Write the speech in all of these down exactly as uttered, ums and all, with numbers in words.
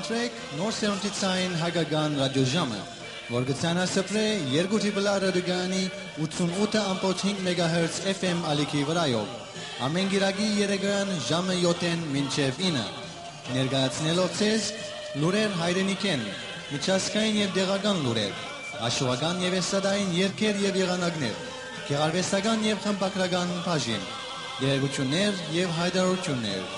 Շրեք նոր սերունդի ցային հայկական ռադիոժամը, որ կը ցանասփռէ երկու Triple R ռադիոկայանի ութսունութ ըմբոց հինգ մեգահերց F M ալիքի վրայով, ամէն կիրակի երեկոյան ժամը յոթ մինչեւ ինը, ներկայացնելով ձեզ լուրեր հայրենիքէն, միջազգային եւ տեղական լուրեր, աշուական եւ էստրադային երգեր եւ եղանակներ, գեղարուեստական եւ խմբագրական բաժին, տեղեկութիւններ եւ յայտարարութիւններ։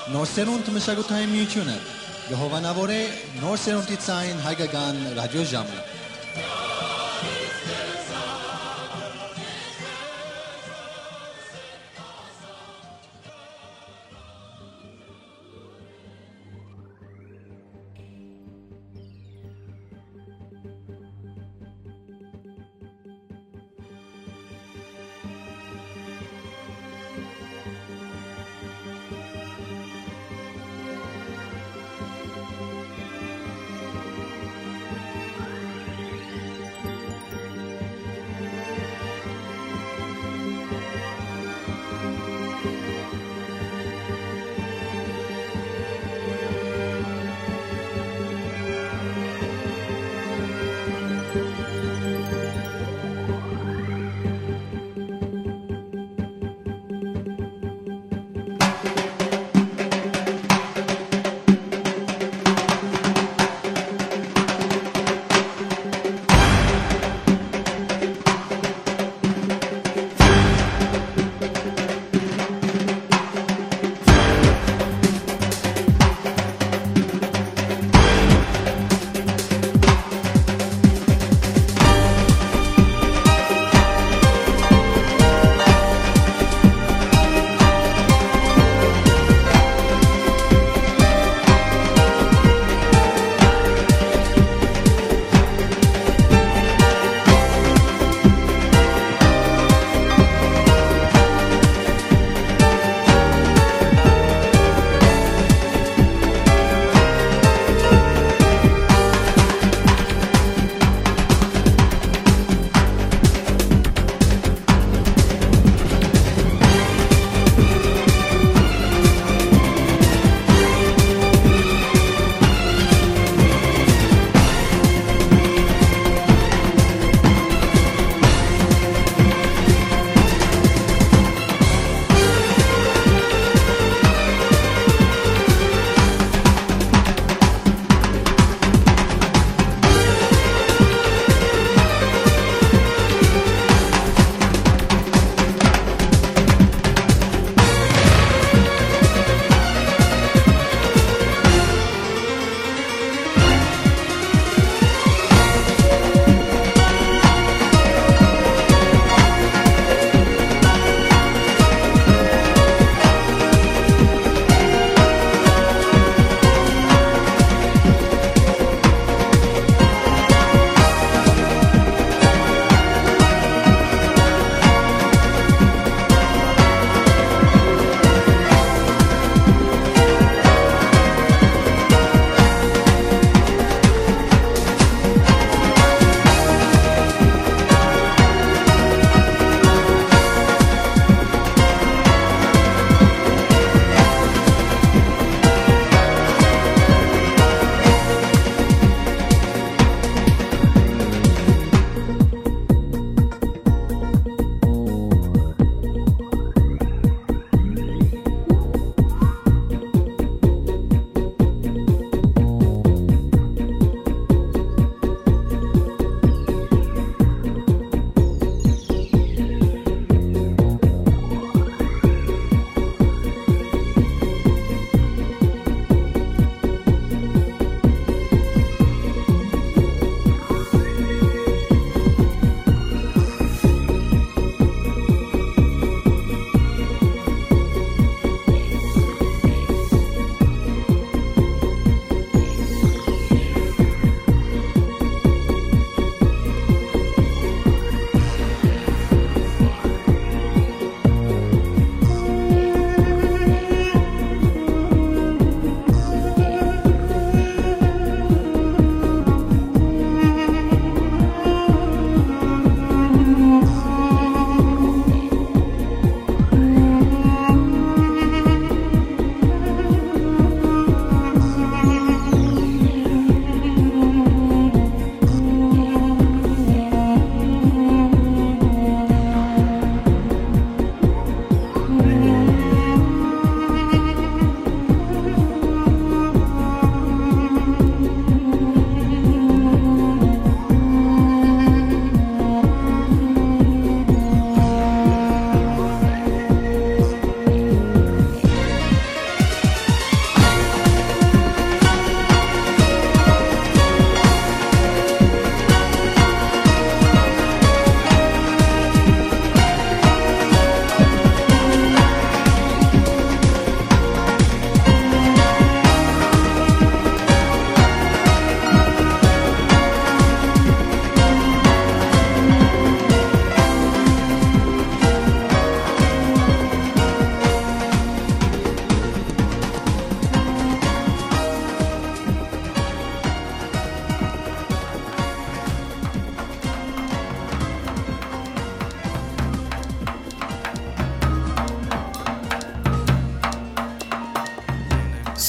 Նոր սերունդ մշակութային միութիւնը կը հովանաւորէ նոր սերունդի ցային հայկական ռադիոժամը։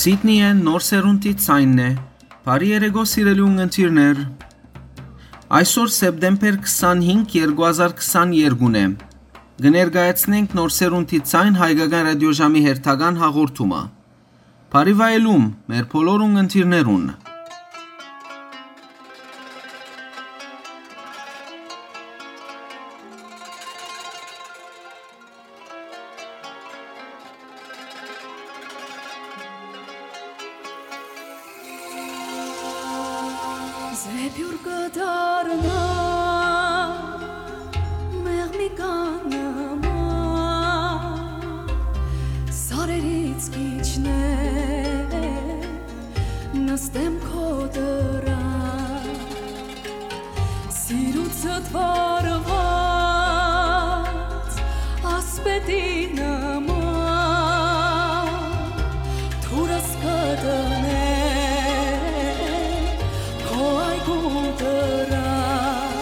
Սիդնիը Նոր Սերունդի ձայնն է։ Բարի երեկո, սիրելի ունգընտիրներ։ Այսօր, սեպտեմբեր քսանհինգ, երկու հազար քսաներկու է։ Կը ներկայացնենք Նոր Սերունդի ձայն հայկական ռադիոժամի հերթական հաղորդումը։ Բարի վայելում մեր բոլոր ունգընտիրներուն։ Զեփյուռ կը դառնայ մեղմի կանման, սարերից կ'իջնեմ, նստեմ քո դռան։ Սիրուցդ վառուած ասպետի նման, դուրս կը դնեմ քո այգու դռան։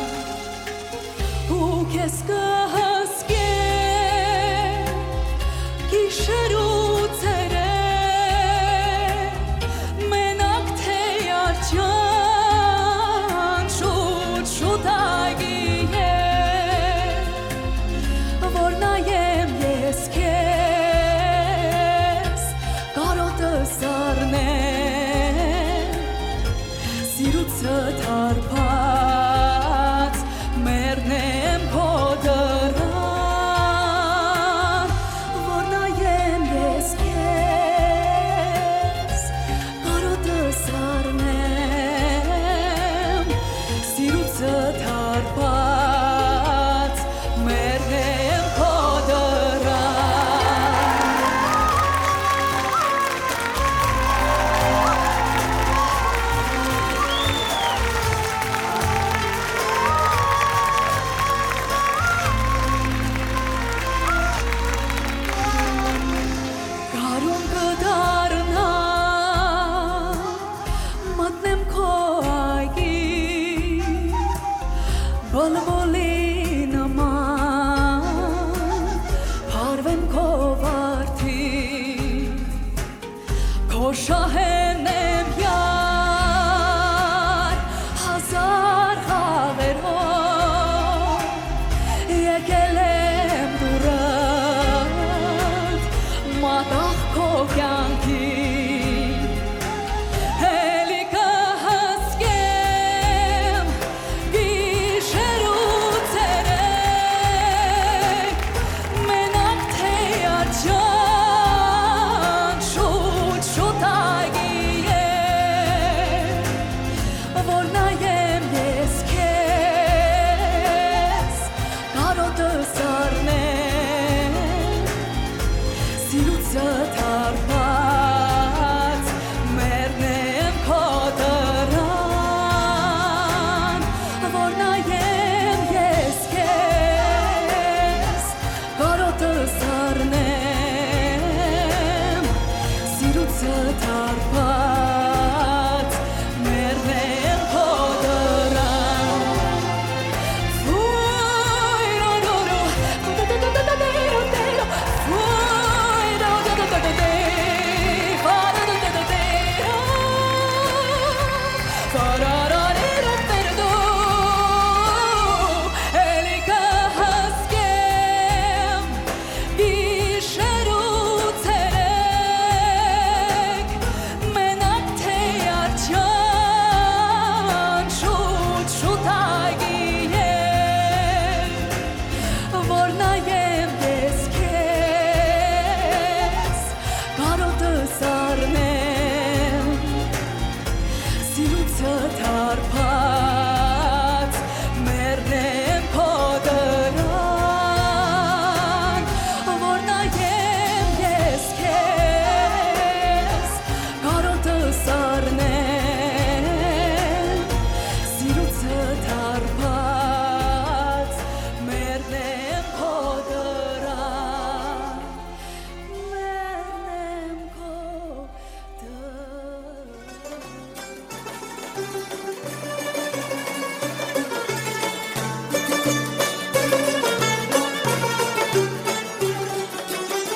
Ու քեզ կը հսկեմ գիշեր ու ցերեկ, մենակ թէ արջան շուտ, շուտ այգի է, որ նայեմ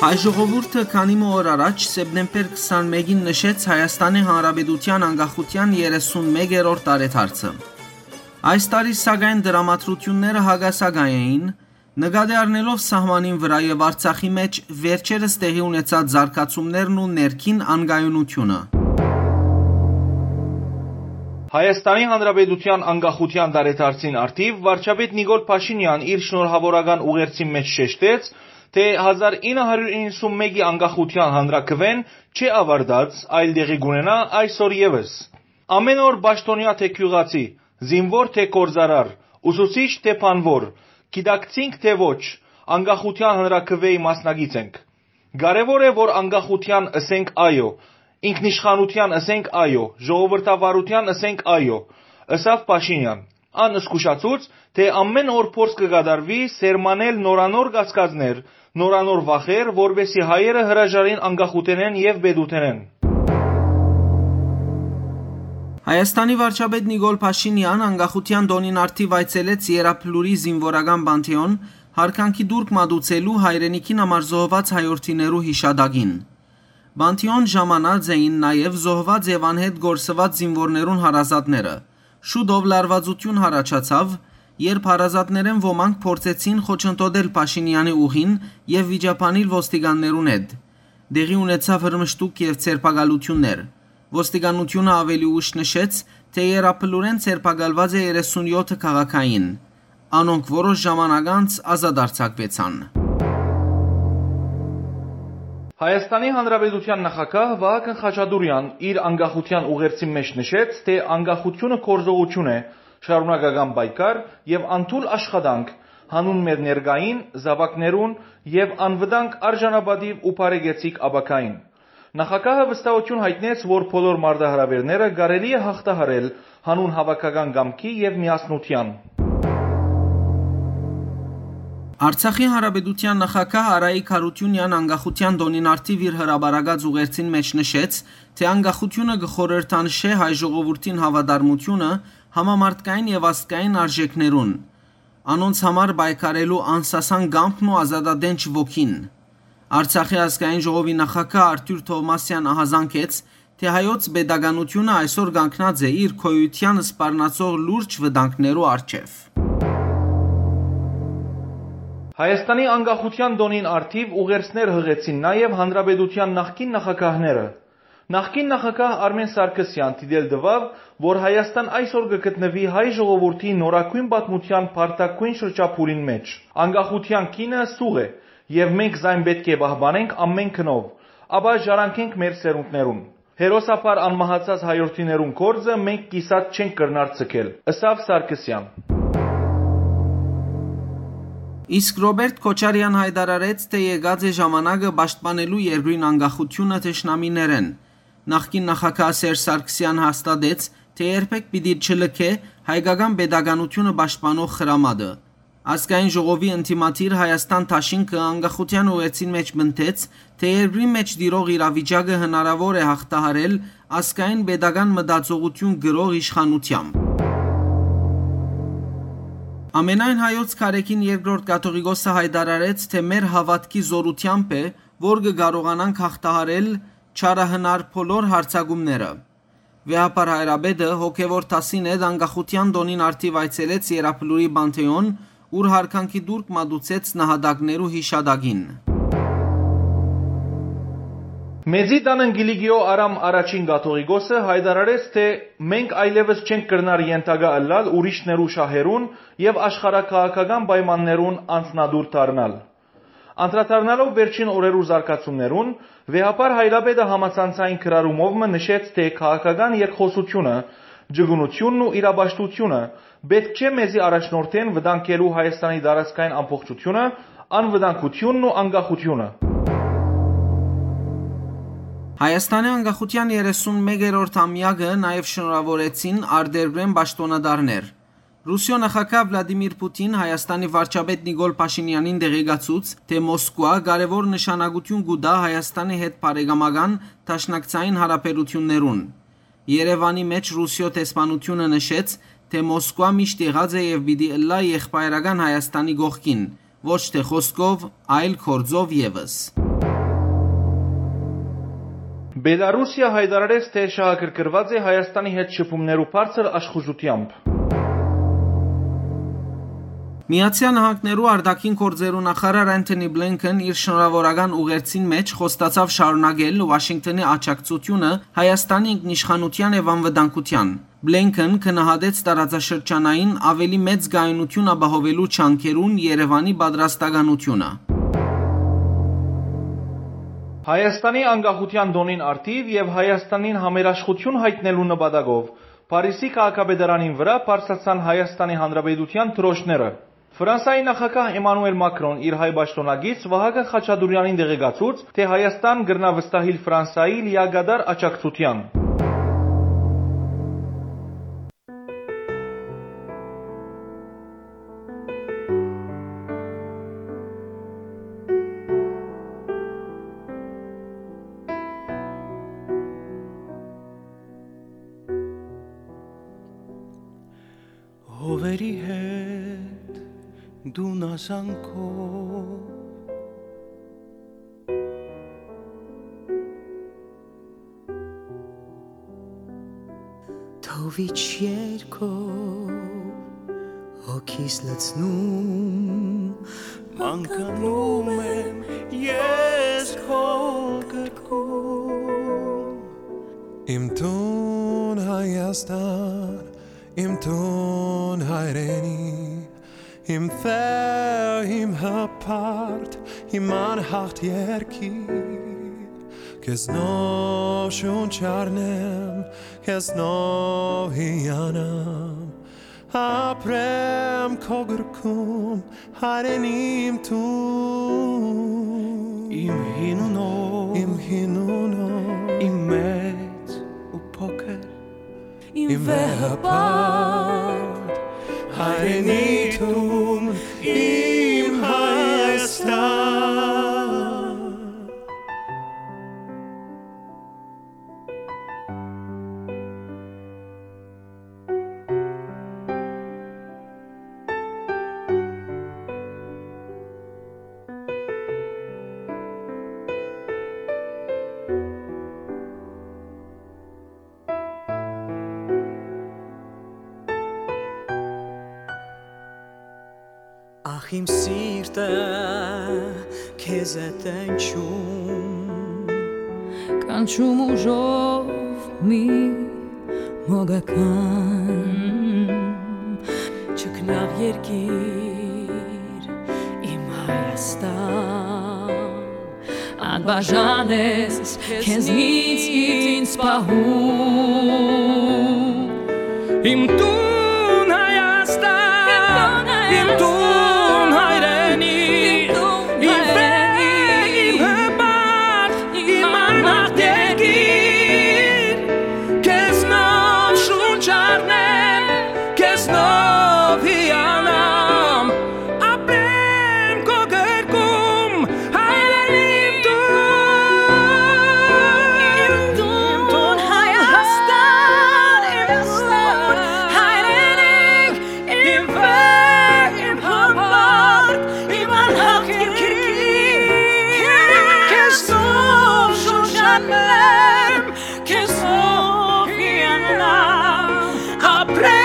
Հայ ժողովուրդը քանի մը օր առաջ, սեպտեմբեր քսանմէկին, նշեց Հայաստանի Հանրապետութեան անկախութեան երեսունմեկերորդ տարեդարձը։ Այս տարի, սակայն, դրամատրութիւնները հակասական էին, նկատի առնելով սահմանին վրայ եւ Արցախի մէջ վերջերս տեղի ունեցած զարգացումներն ու ներքին անկայունութիւնը։ Հայաստանի Հանրապետութեան անկախութեան տարեդարձին առթիւ վարչապետ Նիկոլ Փաշինեան իր շնորհաւորական ուղերձին մէջ շեշտեց, թէ հազար ինը հարիւր իննսունմէկի անկախութեան հանրաքուէն չէ աւարտած, այլ տեղի կունենայ այսօր եւս։ Ամէն օր պաշտօնեայ թէ գիւղացի, զինուոր թէ գործարար, ուսուցիչ թէ բանուոր, գիտակցինք թէ ոչ, անկախութեան հանրաքուէի մասնակից ենք։ Կարեւոր է, որ անկախութեան ըսենք այո, ինքնիշխանութեան ըսենք այո, ժողովրդավարութեան ըսենք այո, ըսաւ Փաշինեան։ Ան զգուշացուց, թէ ամէն օր փորձ կը կատարուի սերմանել նորանոր կասկածներ, նորանոր վախեր, որպէսզի հայերը հրաժարին անկախութենէն եւ պետութենէն։ Հայաստանի վարչապետ Նիկոլ Փաշինեան անկախութեան տօնին առթիւ այցելեց Երապլուրի զինուորական պանթէոն՝ յարգանքի տուրք մատուցելու հայրենիքին համար զոհուած հայորդիներու յիշատակին։ Պանթէոն ժամանած էին նաեւ զոհուած եւ անհետ կորսուած զինուորներուն հարազատները։ Շուտով լարուածութիւն յառաջացաւ, երբ հարազատներէն ոմանք փորձեցին խոչընդոտել Փաշինեանի ուղին եւ վիճաբանել ոստիկաններուն հետ։ Տեղի ունեցաւ հրմշտուկ եւ ձերբակալութիւններ։ Ոստիկանութիւնը աւելի ուշ նշեց, թէ Երապլուրէն ձերբակալուած է երեսունյոթ քաղաքային, անոնք որոշ ժամանակ անց ազատ արձակուեցան։ Հայաստանի Հանրապետութեան նախագահ Վահագն Խաչատուրեան իր անկախութեան ուղերձին մէջ նշեց, թէ անկախութիւնը գործողութիւն է, շարունակական պայքար եւ անդուլ աշխատանք՝ հանուն մեր ներկային, զաւակներուն եւ անվտանգ արժանապատիւ ու բարեկեցիկ ապագային։ Նախագահը վստահութիւն յայտնեց, որ բոլոր մարտահրաւէրները կարելի է յաղթահարել հանուն հաւաքական կամքի եւ միասնութեան։ Արցախի Հանրապետութեան նախագահ Արայիկ Յարութիւնեան անկախութեան տօնին առթիւ իր հրապարակած ուղերձին մէջ նշեց, թէ անկախութիւնը կը խորհրդանշէ հայ ժողովուրդին հաւատարմութիւնը համամարտկային եւ ազգային արժէքներուն, անոնց համար պայքարելու անսասան կամքն ու ազատատենչ ոգին։ Արցախի ազգային ժողովի նախագահ Արթուր Թովմասեան ահազանգեց, թէ հայոց պետականութիւնը այսօր կանգնած է իր գոյութեան սպառնացող լուրջ վտանգներու առջեւ։ Հայաստանի անկախութեան տօնին առթիւ ուղերձներ յղեցին նաեւ հանրապետութեան նախկին նախագահները։ Նախկին նախագահ Արմէն Սարգսեան դիտել տուաւ, որ Հայաստան այսօր կը գտնուի հայ ժողովուրդի նորագոյն պատմութեան բարդագոյն շրջափուլին մէջ։ Անկախութեան գինը սուղ է, եւ մենք զայն պէտք է պահպանենք ամէն գնով, ապա ժառանգենք մեր սերունդներուն։ Հերոսաբար անմահացած հայորդիներուն գործը մենք կիսատ չենք կրնար ձգել, ըսաւ Սարգսեան։ Իսկ Ռոբերտ Քոչարեան յայտարարեց, թէ եկած է ժամանակը պաշտպանելու երկրին անկախութիւնը թշնամիներէն։ Նախկին նախագահ Սերժ Սարգսեան հաստատեց, թէ երբեք պիտի չլքէ հայկական պետականութիւնը պաշտպանող խրամատը։ Ազգային ժողովի ընդդիմադիր Հայաստան դաշինքը անկախութեան ուղերձին մէջ պնդեց, թէ երկրին մէջ տիրող իրավիճակը հնարաւոր է յաղթահարել ազգային պետական մտածողութիւն կրող իշխանութեամբ։ Ամենայն հայոց քարէքին երկրորդ կաթողիկոսը յայտարարեց, թէ մեր հաւատքի զօրութեամբ է, որ կը կարողանանք յաղթահարել չարահնար բոլոր յարձակումները։ Վեհափառ հայրապետը հոգեւոր դասին հետ անկախութեան տօնին առթիւ այցելեց Երապլուրի Պանթէոն, ուր յարգանքի տուրք մատուցեց նահատակներու յիշատակին։ Մեծի տան Կիլիկիոյ Արամ առաջին կաթողիկոսը յայտարարեց, թէ մենք այլեւս չենք կրնար ենթակայ ըլլալ ուրիշներու շահերուն եւ աշխարհաքաղաքական պայմաններուն անձնատուր դառնալ։ Անդրադառնալով վերջին օրերու զարգացումներուն, վեհափառ հայրապետը համացանցային գրառումով մը նշեց, թէ քաղաքական երկխօսութիւնը, ճկունութիւնն ու իրապաշտութիւնը պէտք չէ մեզի առաջնորդեն վտանգելու Հայաստանի տարածքային ամբողջութիւնը, անվտանգութիւնն ու անկախութիւնը։ Հայաստանի անկախութեան երեսունմեկերորդ ամեակը նաեւ շնորհաւորեցին արտերկրէն պաշտօնատարներ։ Ռուսիոյ նախագահ Վլադիմիր Պուտին Հայաստանի վարչապետ Նիկոլ Փաշինեանին տեղեկացուց, թէ Մոսկուա կարեւոր նշանակութիւն կու տայ Հայաստանի հետ բարեկամական դաշնակցային յարաբերութիւններուն։ Երեւանի մէջ Ռուսիոյ դեսպանութիւնը նշեց, թէ Մոսկուա միշտ եղած է եւ պիտի ըլլայ եղբայրական Հայաստանի կողքին, ոչ թէ խօսքով, այլ գործով եւս։ Բելառուսիա յայտարարեց, թէ շահագրգռուած է Հայաստանի հետ շփումներու բարձր աշխուժութեամբ։ Միացեալ Նահանգներու արտաքին գործերու նախարար Անթոնի Բլինքեն իր շնորհաւորական ուղերձին մէջ խոստացաւ շարունակել Ուաշինկթոնի աջակցութիւնը Հայաստանի ինքնիշխանութեան եւ անվտանգութեան։ Բլինքեն գնահատեց տարածաշրջանային աւելի մեծ կայունութիւն ապահովելու ջանքերուն Երեւանի պատրաստականութիւնը։ Հայաստանի անկախութեան տօնին առթիւ եւ Հայաստանին համերաշխութիւն յայտնելու նպատակով Փարիզի քաղաքապետարանին վրայ բարձրացան Հայաստանի Հանրապետութեան դրոշները։ Ֆրանսայի նախագահ Էմանուել Մակրոն իր հայ պաշտօնակից Վահագն Խաչատուրեանին տեղեկացուց, թէ Հայաստան կրնայ վստահիլ Ֆրանսայի լիակատար աջակցութեան։ Հովերի հետ դու նազանքով, թովիչ երկով հոգիս լցնում, մանկանում եմ ես քո գրկում։ Իմ տուն Հայաստան, իմ տուն հայրենի, իմ վեհ, իմ հպարտ, իմ անհաղթ երկիր, քեզնով շունչ առնեմ, քեզնով հիանամ, ապրեմ քո գրկում, հայրենի իմ տուն։ Իմ հին ու նոր, իմ հին ու նոր, իմ մեծ ու փոքր, իմ վեհ հպարտ հայրենի տուն, իմ Հայաստան։ Ախ, իմ սիրտը քեզ է տենչում, կանչում ուժով մի մոգական, չքնաղ երկիր, իմ Հայաստան, անբաժան ես քեզնից ինձ պահում։ Իմ տուն Հայաստան, իմ տուն հայրենի, իմ վեհ, իմ հպարտ, իմ անհաղթ երկիր, քեզնով շունչ առնեմ, քեզնով հիանամ, ապրեմ քո գրկում, հայրենի իմ տուն։ Իմ տուն Հայաստան, իմ տուն հայրենիք, իմ վեհ, իմ հպարտ, իմ անհաղթ երկիր, քեզնով շունչ առնեմ, քեզնով հիանամ, ապրեմ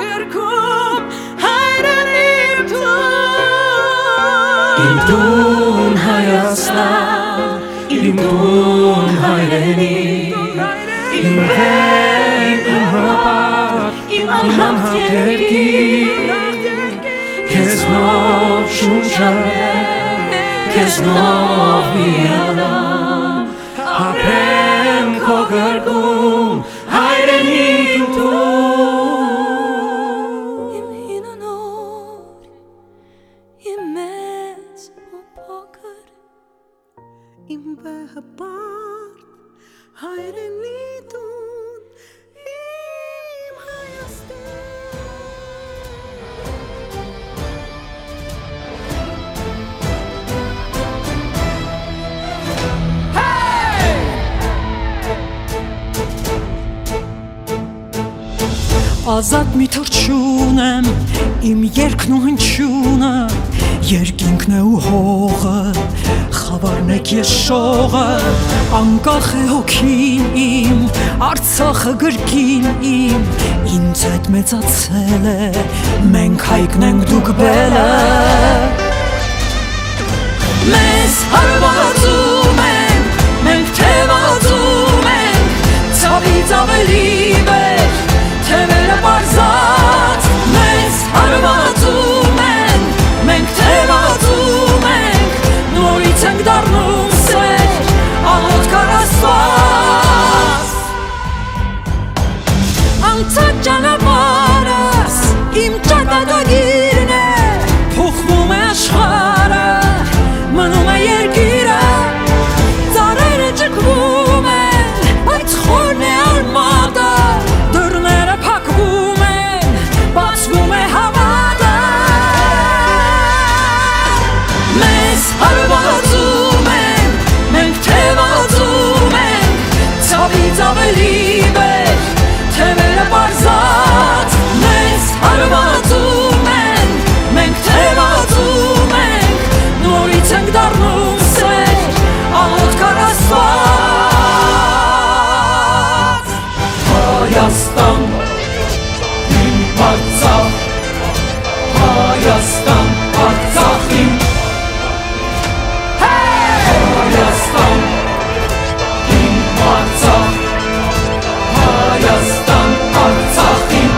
քո գրկում, հայրենի իմ տուն։ Իմ տուն Հայաստան, իմ տուն հայրենի, իմ վեհ, իմ հպարտ, իմ անհաղթ երկիր, քեզնով շունչ առնեմ, քեզնով հիանամ, ապրեմ քո գրկում, հայրենի իմ տուն։ Իմ հին ու նոր, իմ մեծ ու փոքր, իմ վեհ հպարտ, հայրենի տուն, իմ Հայաստան։ Ազատ մի թռչուն եմ, իմ երգն ու հնչյունը, Երկինքն է ու հողը, խաւարն է կեշողը, անկախ է հոգին իմ, Արցախը կրկին իմ, ինձ հետ մեծացել է, մենք հայկն ենք, դուք բելը։ Մեզ հարվածում են, մենք թևածում ենք, ցավից ավելի վեր, թևերը պարզած, մեզ հարվածում են, մենք թևածում ենք, նորից ենք դառնում սեր, աղոթք առ Աստված։ Անցած ճանապարհս իմ ճակատագիրն է, փոխվում է աշխարհը, մնում է երկիրը, ծառերը ճկվում են, բայց խորն է արմատը, դռները փակվում են, բացվում է հավատը։ Մեզ հարվածում են, մենք թևածում ենք, ցավից ավելի վեր, թևերը պարզած, մեզ հարվածում են, մենք թևածում ենք, նորից ենք դառնում սեր, աղոթք առ Աստված։ Հայաստան, իմ Արցախ, Հայաստան, Արցախ իմ, Հայաստան, իմ Արցախ, Հայաստան, Արցախ իմ։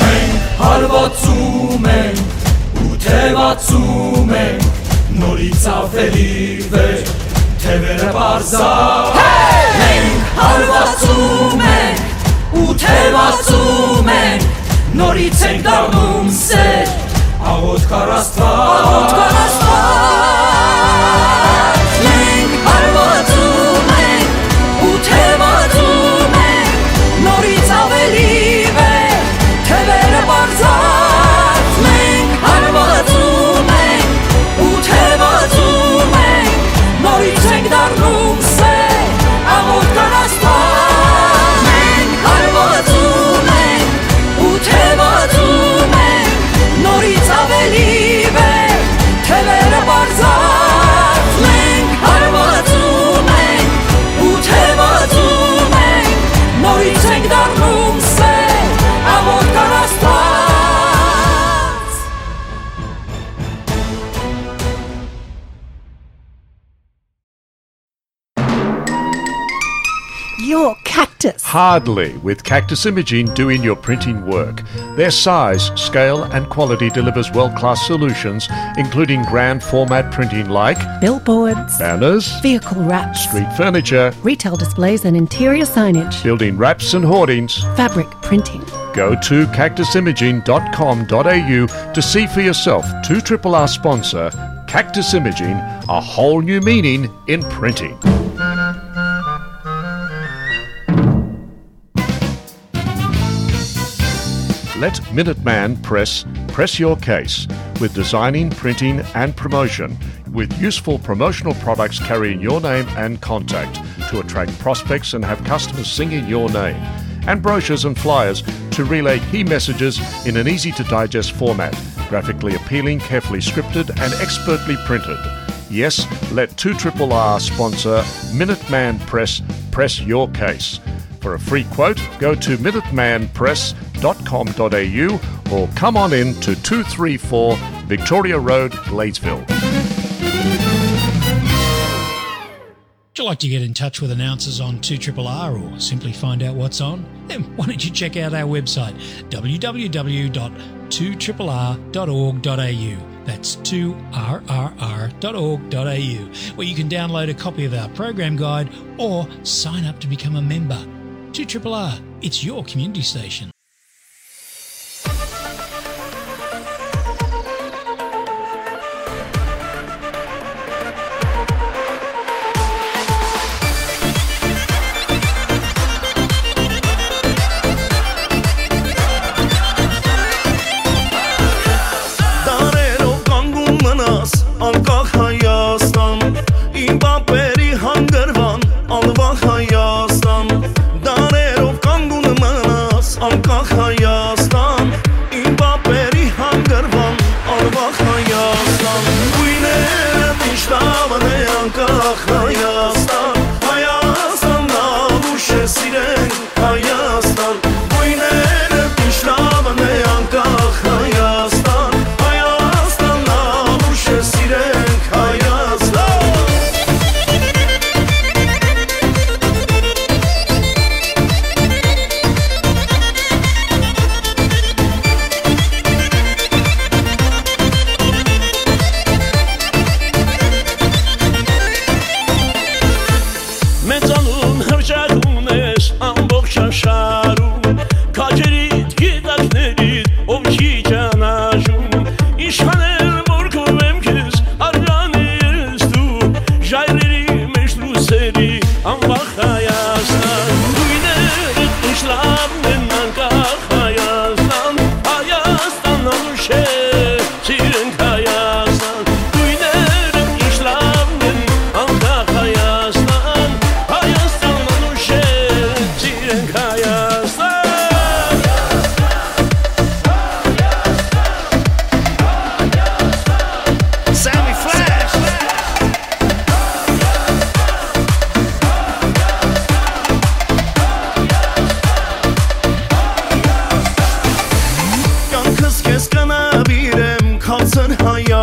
Մենք հարվածում ենք ու թևածում ենք, նորից ավելի վեր, թևերը պարզա։ Մենք հարվածում ենք ու թևածում ենք, նորից ենք դառնում սեր, աղոթք առ Աստված։ Աղոթք առ Աստված։ Մենք հարվածում ենք ու թևածում ենք, նորից ավելի վեր, թևերը պարզած, մենք հարվածում ենք ու թևածում ենք, նորից ենք դառնում սեր, աղոթք առ Աստված։ Մենք հարվածում ենք ու թևածում ենք, նորից ավելի վեր, թևերը պարզած, մենք հարվածում ենք ու թևածում ենք, նորից ենք դառնում սեր, աղոթք առ Աստված։ Your Cactus. Hardly, with Cactus Imaging doing your printing work. Their size, scale, and quality delivers world-class solutions, including grand format printing like billboards, banners, vehicle wraps, street furniture, retail displays, and interior signage, building wraps and hoardings, fabric printing. Go to cactus imaging dot com dot a u to see for yourself two triple R sponsor Cactus Imaging, a whole new meaning in printing. Let Minuteman Press press your case with designing, printing, and promotion, with useful promotional products carrying your name and contact to attract prospects and have customers singing your name, and brochures and flyers to relay key messages in an easy-to-digest format, graphically appealing, carefully scripted, and expertly printed. Yes, let two triple R sponsor Minuteman Press press your case. For a free quote, go to minuteman press dot com dot a u or come on in to two three four Victoria Road, Gladesville. Would you like to get in touch with announcers on two triple R or simply find out what's on? Then why don't you check out our website, w w w dot two triple r dot org dot a u. That's two r r r dot org dot a u, where you can download a copy of our program guide or sign up to become a member. Two triple R, it's your community station. Դարերով կանգուն մնաս, անկախ Հայաստան, իմ պապերի հանգրվան, անվախ Հայաստան։ Դարերով կանգուն մնաս, անկախ Հայաստան, իմ պապերի հանգրվան,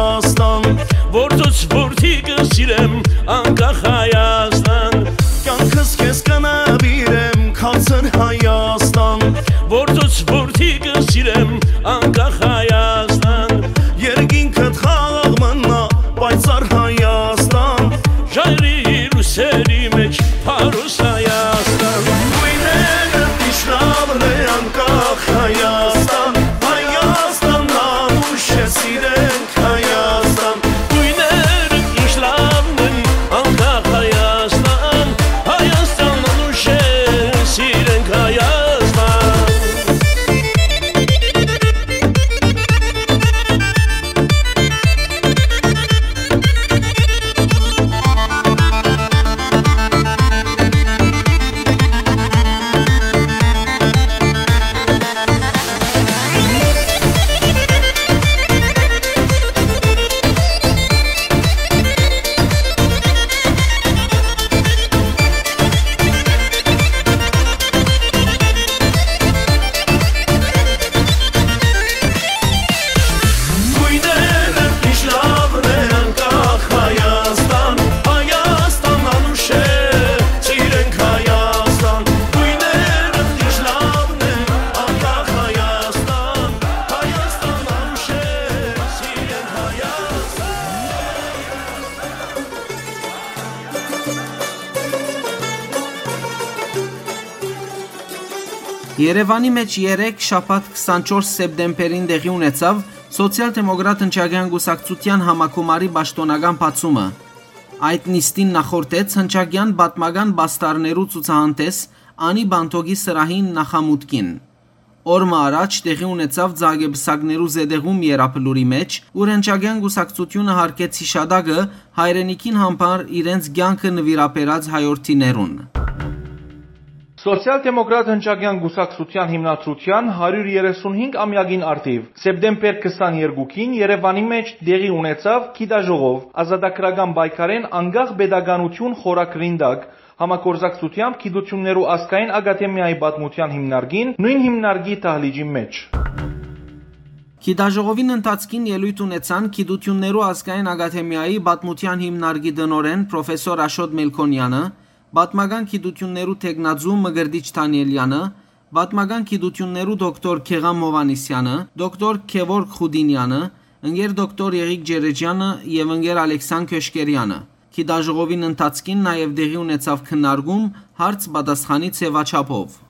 Հայաստան, որ դուց որդի կը սիրեմ, անկախ Հայաստան, կյանքս քեզ կը նուիրեմ, քարսեր Հայաստան, որ դուց որդի կը սիրեմ, անկախ Հայաստան, երկինքդ խաղաղ մնա, պայծառ Հայաստան, ժայռի լուսերի մեջ փարոս Հայաստան, գույները միշտ լավն է, անկախ Հայաստան, Հայաստան, անուշ է, սիրենք Հայաստան, գույները միշտ լավն են, անկախ Հայաստան, Հայաստան, անուշ է, սիրենք Հայաստան։ Գույները միշտ լավն է, անկախ Հայաստան, Հայաստան անուշ է, սիրենք Հայաստան, գույները միշտ լավն է, անկախ Հայաստան, Հայաստան անուշ է, սիրենք Հայաստան։ Երեւանի մէջ երեկ, շաբաթ, քսանչորս սեպտեմբերին, տեղի ունեցաւ Սոցիալ-դեմոկրատ հնչակեան կուսակցութեան համագումարի պաշտօնական բացումը։ Այդ նիստին նախորդեց հնչակեան պատմական պաստառներու ցուցահանդես Անի Պանթոկի սրահին նախամուտքին։ Օր մը առաջ տեղի ունեցաւ Ձագեպսակներու զետեղում Երապլուրի մէջ, ուր հնչակեան կուսակցութիւնը յարգեց յիշատակը հայրենիքին համար իրենց կեանքը նուիրաբերած հայորդիներուն։ Սոցիալ-դեմոկրատ հնչակեան կուսակցութեան հիմնադրութեան հարիւր երեսունհինգ ամեակին առթիւ, սեպտեմբեր քսաներկուին Երեւանի մէջ տեղի ունեցաւ գիտաժողով ազատագրական պայքարէն անկախ պետականութիւն խորագրին տակ, համագործակցութեամբ Գիտութիւններու ազգային ակադեմիայի պատմութեան հիմնարկին, նոյն հիմնարկի դահլիճին մէջ։ Գիտաժողովին ընթացքին ելոյթ ունեցան Գիտութիւններու ազգային ակադեմիայի պատմութեան հիմնարկի տնօրէն պրոֆեսոր Աշոտ Մելքոնեանը, պատմական գիտութիւններու թեկնածու Մկրտիչ Դանիելյանը, պատմական գիտութիւններու դոկտոր Գեղամ Հովհաննիսյանը, դոկտոր Գեորգ Խուդինյանը, ընկեր դոկտոր Եղիկ Ջերեջյանը եւ ընկեր Ալեքսան Քյոշկերյանը։ Գիտաժողովին ընթացքին նաեւ տեղի ունեցաւ քննարկում հարց-պատասխանի ձեւաչափով։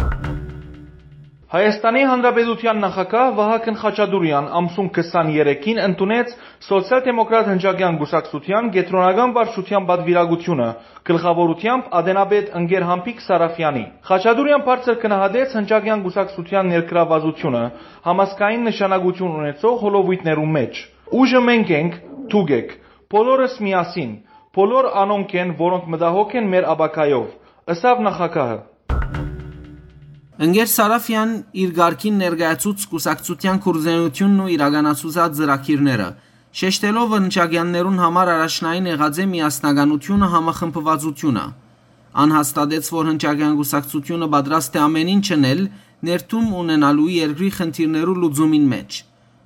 Հայաստանի Հանրապետութեան նախագահ Վահագն Խաչատուրեան ամսուն քսաներեքին ընդունեց Սոցիալ-դեմոկրատ հնչակեան կուսակցութեան կեդրոնական վարչութեան պատուիրակութիւնը, գլխաւորութեամբ ատենապետ ընկեր Համբիկ Սարաֆեանի։ Խաչատուրեան բարձր գնահատեց հնչակեան կուսակցութեան ներգրաւվածութիւնը համազգային նշանակութիւն ունեցող հոլովոյթներու մէջ։ «Ուժը մենք ենք, դուք էք, բոլորս միասին, բոլոր անոնք են, որոնք մտահոգ են մեր ապագայով», ըսաւ նախագահը։ Ընկեր Սարաֆեան իր կարգին ներկայացուց կուսակցութեան գործունեութիւնն ու իրականացուցած ծրագիրները, շեշտելով հնչակեաններուն համար առաջնային եղած է միասնականութիւնը, համախմբվածութիւնը։ Ան հաստատեց, որ հնչակեան կուսակցութիւնը պատրաստ է ամեն ինչ ընել՝ ներդրում ունենալու երկրի խնդիրներու լուծումին մէջ։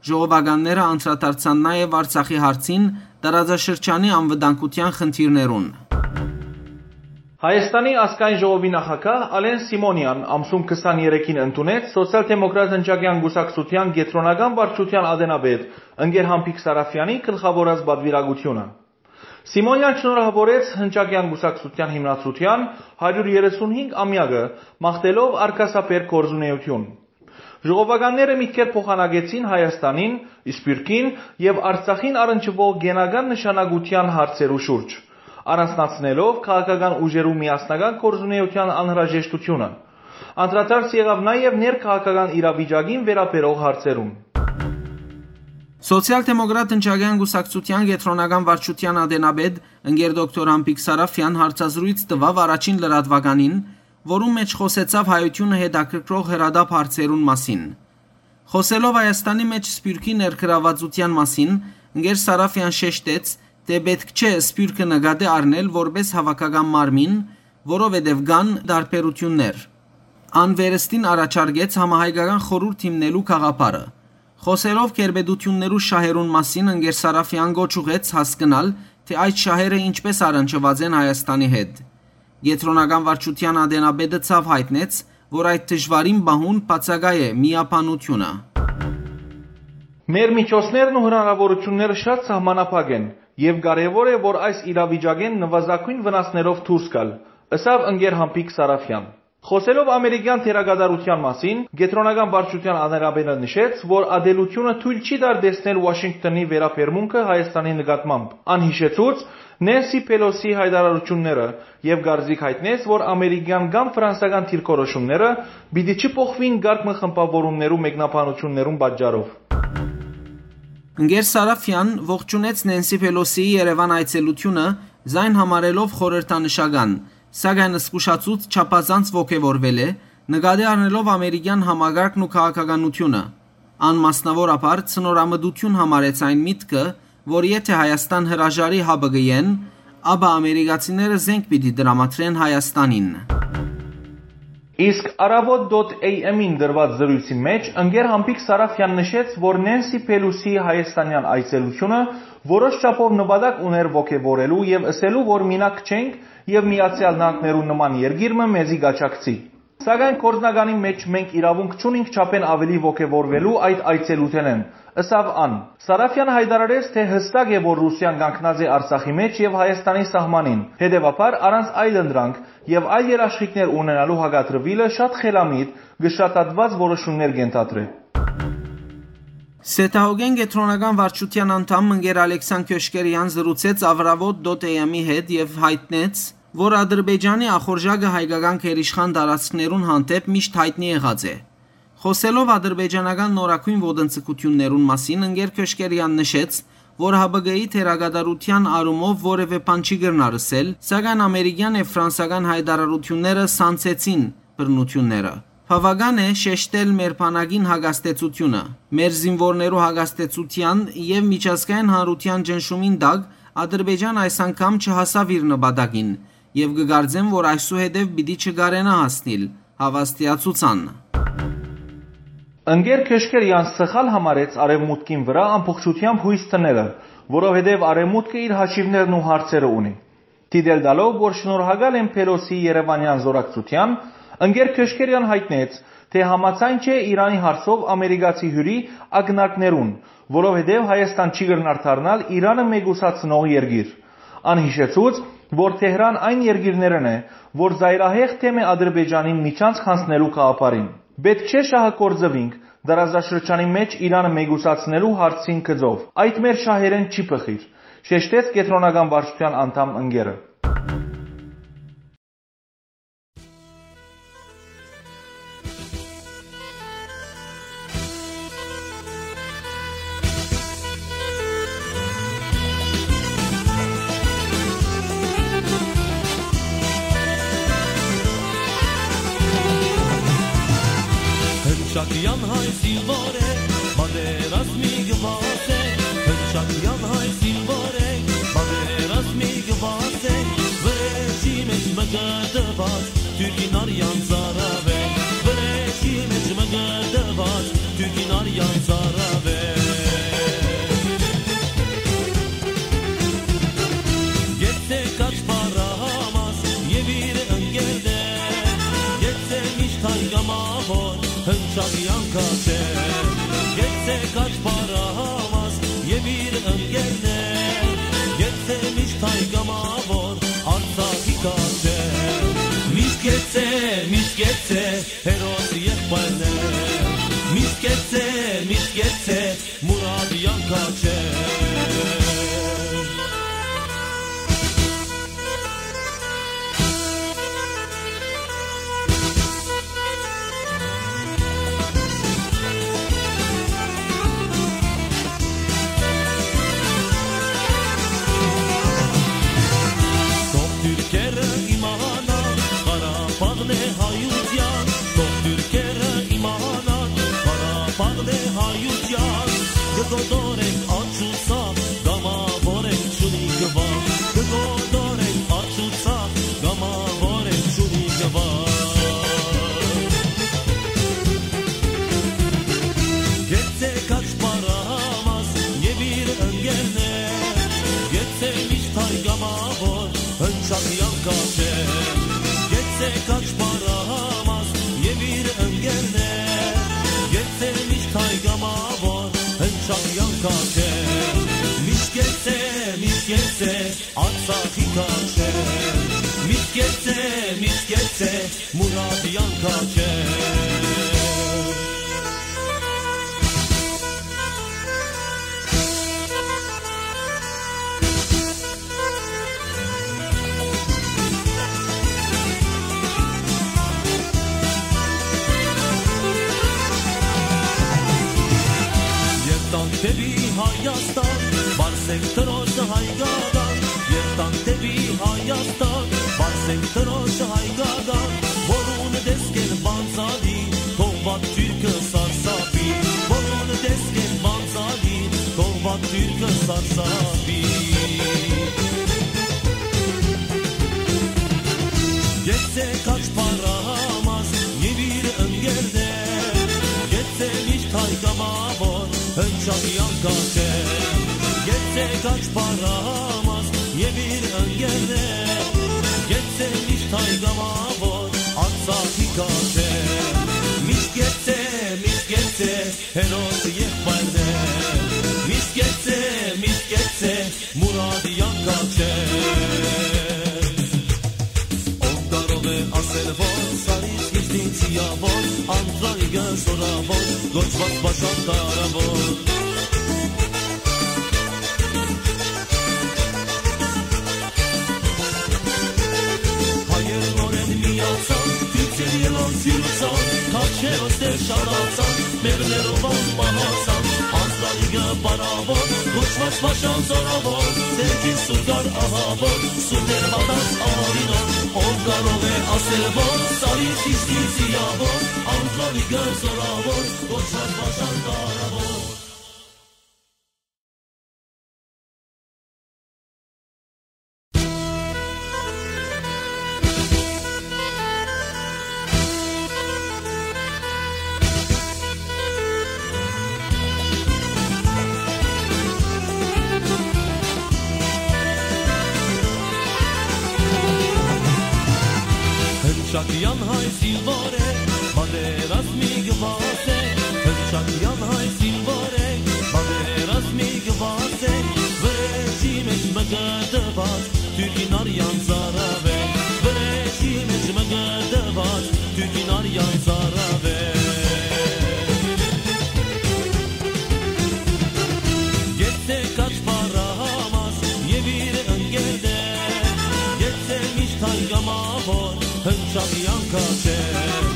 Ժողովականները անդրադարձան նաեւ Արցախի հարցին, տարածաշրջանի անվտանգութեան խնդիրներուն։ Հայաստանի ազգային ժողովի նախագահ Ալեն Սիմոնեան ամսուն քսաներեքին ընդունեց Սոցիալ-դեմոկրատ հնչակեան կուսակցութեան կեդրոնական վարչութեան ատենապետ ընկեր Համբիկ Սարաֆեանի գլխաւորած պատուիրակութիւնը։ Սիմոնեան շնորհաւորեց հնչակեան կուսակցութեան հիմնադրութեան հարիւր երեսունհինգ ամեակը, մաղթելով արգասաբեր գործունեութիւն։ Ժողովականները միտքեր փոխանակեցին Հայաստանին, Սփիւռքին եւ Արցախին առնչուող կենական նշանակութեան հարցերու շուրջ, առանձնացնելով քաղաքական ուժերու միասնական գործունեութեան անհրաժեշտութիւնը։ Անդրադարձ եղաւ նաեւ ներքաղաքական իրավիճակին վերաբերող հարցերուն։ Սոցիալ-դեմոկրատ հնչակեան կուսակցութեան կեդրոնական վարչութեան ատենապետ ընկեր դոկտոր Համբիկ Սարաֆեան հարցազրոյց տուաւ առաջին լրատվականին, որուն մէջ խօսեցաւ հայութիւնը հետաքրքրող հրատապ հարցերուն մասին։ Խօսելով Հայաստանի մէջ Սփիւռքի ներգրաւվածութեան մասին, ընկեր Սարաֆեան շեշտեց, թէ պէտք չէ Սփիւռքը նկատի առնել որպէս հաւաքական մարմին, որովհետեւ կան տարբերութիւններ։ Ան վերստին առաջարկեց համահայկական խորհուրդ հիմնելու գաղափարը։ Խօսելով գերպետութիւններու շահերուն մասին, ընկեր Սարաֆեան կոչ ուղղեց հասկնալ, թէ այդ շահերը ինչպէս առնչուած են Հայաստանի հետ։ Կեդրոնական վարչութեան ատենապետը ցաւ յայտնեց, որ այդ դժուարին պահուն բացակայ է միաբանութիւնը։ Մեր միջոցներն ու հնարաւորութիւնները շատ սահմանափակ են, եւ կարեւոր է, որ այս իրավիճակէն նուազագոյն վնասներով դուրս գալ, ըսաւ ընկեր Համբիկ Սարաֆեան։ Խօսելով ամերիկեան դերակատարութեան մասին, կեդրոնական վարչութեան ատենապետը նշեց, որ ատելութիւնը թոյլ չի տար տեսնել Ուաշինկթոնի վերաբերմունքը Հայաստանի նկատմամբ։ Ան յիշեցուց Նենսի Փելոսի յայտարարութիւնները եւ կարծիք յայտնեց, որ ամերիկեան կամ ֆրանսական դիրքորոշումները պիտի չփոխուին կարգ մը խմբաւորումներու մեկնաբանութիւններուն պատճառով։ Ընկեր Սարաֆեան ողջունեց Նենսի Փելոսիի Երեւան այցելութիւնը, զայն համարելով խորհրդանշական, սակայն զգուշացուց չափազանց ոգեւորվել է, նկատի առնելով ամերիկեան համակարգն ու քաղաքականութիւնը։ Ան մասնաւորաբար ցնորամտութիւն համարեց այն միտքը, որ եթէ Հայաստան հրաժարի Յ Բ Կ-ին, ապա ամերիկացիները զենք պիտի տրամադրեն Հայաստանին։ Իսկ Առավոտ.am-ին տրուած զրոյցի մէջ ընկեր Համբիկ Սարաֆեան նշեց, որ Նենսի Փելոսի հայաստանեան այցելութիւնը որոշ չափով նպատակ ուներ ոգեւորելու եւ ըսելու, որ մինակ չենք եւ Միացեալ Նահանգներու նման երկիր մը մեզի կաջակցի։ Սակայն գործնականի մէջ մենք իրաւունք չունինք չափէն աւելի ոգեւորուելու այդ այցելութենէն, ըսաւ ան։ Սարաֆեան յայտարարեց, թէ յստակ է, որ Ռուսիան կանգնած է Արցախի մէջ եւ Հայաստանի սահմանին, հետեւաբար առանց այլ ընտրանք եւ այլ երաշխիքներ ունենալու հակադրուիլը շատ խելամիտ, կշռադատուած որոշումներ կ'ենթադրէ։ Սեդահոգէն կեդրոնական վարչութեան անդամ ընկեր Ալեքսան Քյոշկերեան զրուցեց Avravot.am-ի հետ եւ յայտնեց, որ Ադրբեջանի ախորժակը հայկական գերիշխան տարածքներուն հանդէպ միշտ յայտնի եղած է։ Խօսելով ադրբեջանական նորագոյն ոտնձգութիւններուն մասին, ընկեր Քյոշկերեան նշեց, որ Յ Բ Կ-ի դերակատարութեան առումով որեւէ բան չի կրնար ըսել, սակայն ամերիկեան եւ ֆրանսական յայտարարութիւնները սանձեցին բռնութիւնները։ Բաւական է շեշտել մեր բանակին հակազդեցութիւնը։ Մեր զինուորներու հակազդեցութեան եւ միջազգային հանրութեան ճնշումին տակ Ադրբեջան այս անգամ չհասաւ իր նպատակին եւ կը կարծեմ, որ այսուհետեւ պիտի չկարենայ հասնիլ, հաւաստիացուց ան։ Ընկեր Քյոշկերեան սխալ համարեց Արեւմուտքին վրայ ամբողջութեամբ յոյս դնելը, որովհետեւ Արեւմուտքը իր հաշիւներն ու հարցերը ունի։ Դիտել տալով, որ շնորհակալ են Փելոսի երեւանեան զօրակցութեան, ընկեր Քյոշկերեան յայտնեց, թէ համաձայն չէ Իրանի հարցով ամերիկացի հիւրի ակնարկներուն, որովհետեւ Հայաստան չի կրնար դառնալ Իրանը մեկուսացնող երկիր։ Ան յիշեցուց, որ Թեհրան այն երկիրներէն է, որ ծայրահեղ դեմ է Ադրբեջանին միջանցք յանձնելու գաղափարին։ Պէտք չէ շահը գործուինք, տարածաշրջանի մէջ Իրանը մեկուսացնելու հարցին գծով։ Այդ մեր շահերէն չի բխիր, շեշտեց կեդրոնական վարչութեան անդամ ընկերը։ Հնչակեան հայ զինվոր է, պատերազմի գուազ է, հնչակեան հայ զինվոր է, պատերազմի գուազ է, վրեժի մեջ մկրտված, Թուրքին արյան ծարաւ է, վրեժի մեջ մկրտված, Թուրքին արյան ծարաւ է։ Գեցե Կաչպարահամաս եւ իր ընկերներ, գեցե միշտ հայ կամավոր, հնչակեան քաչեր, գեցե Կաչպարահամաս եւ իր ընկերներ, գեցե միշտ հայ կամավոր, Արցախի քաչեր, միշտ գեցե, միշտ գեցե, հերոս եղբայրներ, միշտ գեցե, միշտ գեցե, Մուրադեան քաչեր։ Թող թուրքերը իմանան, Ղարաբաղն է հայութեան, թող թուրքերը իմանան, Ղարաբաղն է հայութեան, կը կոտորենք աջ ու ցախ, կամավոր ենք, չունի գվախ, կը կոտորենք աջ ու ցախ, կամավոր ենք, չունի գվախ։ Գեցե քաչ Քաչե, միշտ գեցե, միշտ գեցե, Արցախի քաչե, միշտ գեցե, միշտ գեցե, Մուրադի անքաչե։ Երթանք դեպի Հայաստան, պարսենք Տրոջը հայկական, երթանք դեպի Հայաստան, պարսենք Տրոջը հայկական, որուն տեսքէն բանձալի, թող վատ թուրքը սարսափի, որուն տեսքէն բանձալի, թող վատ թուրքը սարսափի։ Գեցե քաչ փառահամազ եւ իր ընկերներ, գեցե միշտ հայ կամավոր, հնչակի անքաչեր, գեցե քաչ փառահամազ եւ իր ընկերներ, գեցե միշտ հայ կամավոր, Արցախի քաչեր, միշտ գեցե, միշտ գեցե, հերոս եղբայրներ, միշտ գեցե, միշտ գեցե, Մուրադի անքաչեր։ Ով կարող է ասել, որ Սարից իջնի Ձիաւոր, Անտրանիկը զորաւոր, կոչուած Պաշան Դարաւոր։ Հայեր նորէն միացան, դիցեր ելան սիրուցան, քաչերոս դեր շատացան, մեղներով անմահացան, Անտրանիկը բարաւոր, կոչուած Պաշան զորաւոր, ձերքին սուրգար ահաւոր, սուրդեր մատած արինով, ով կարող է ասել, որ Սարից իջնի Ձիաւոր, Անտրանիկը զորաւոր, կոչուած Պաշան Դարաւոր։ Հնչակեան հայ զինվոր է, պատերազմի գուազ է, Հնչակեան հայ զինվոր է, պատերազմի գուազ է, վրեժի մէջ մկտուած, թուրքին արեան ծարաւ է, վրեժի մէջ մկտուած, թուրքին արեան ծարաւ է։ Գեցե քաչ փառահամազ եւ իր ընկերներ, գեցե միշտ հայ կամավոր, հնչակի անքաչեր,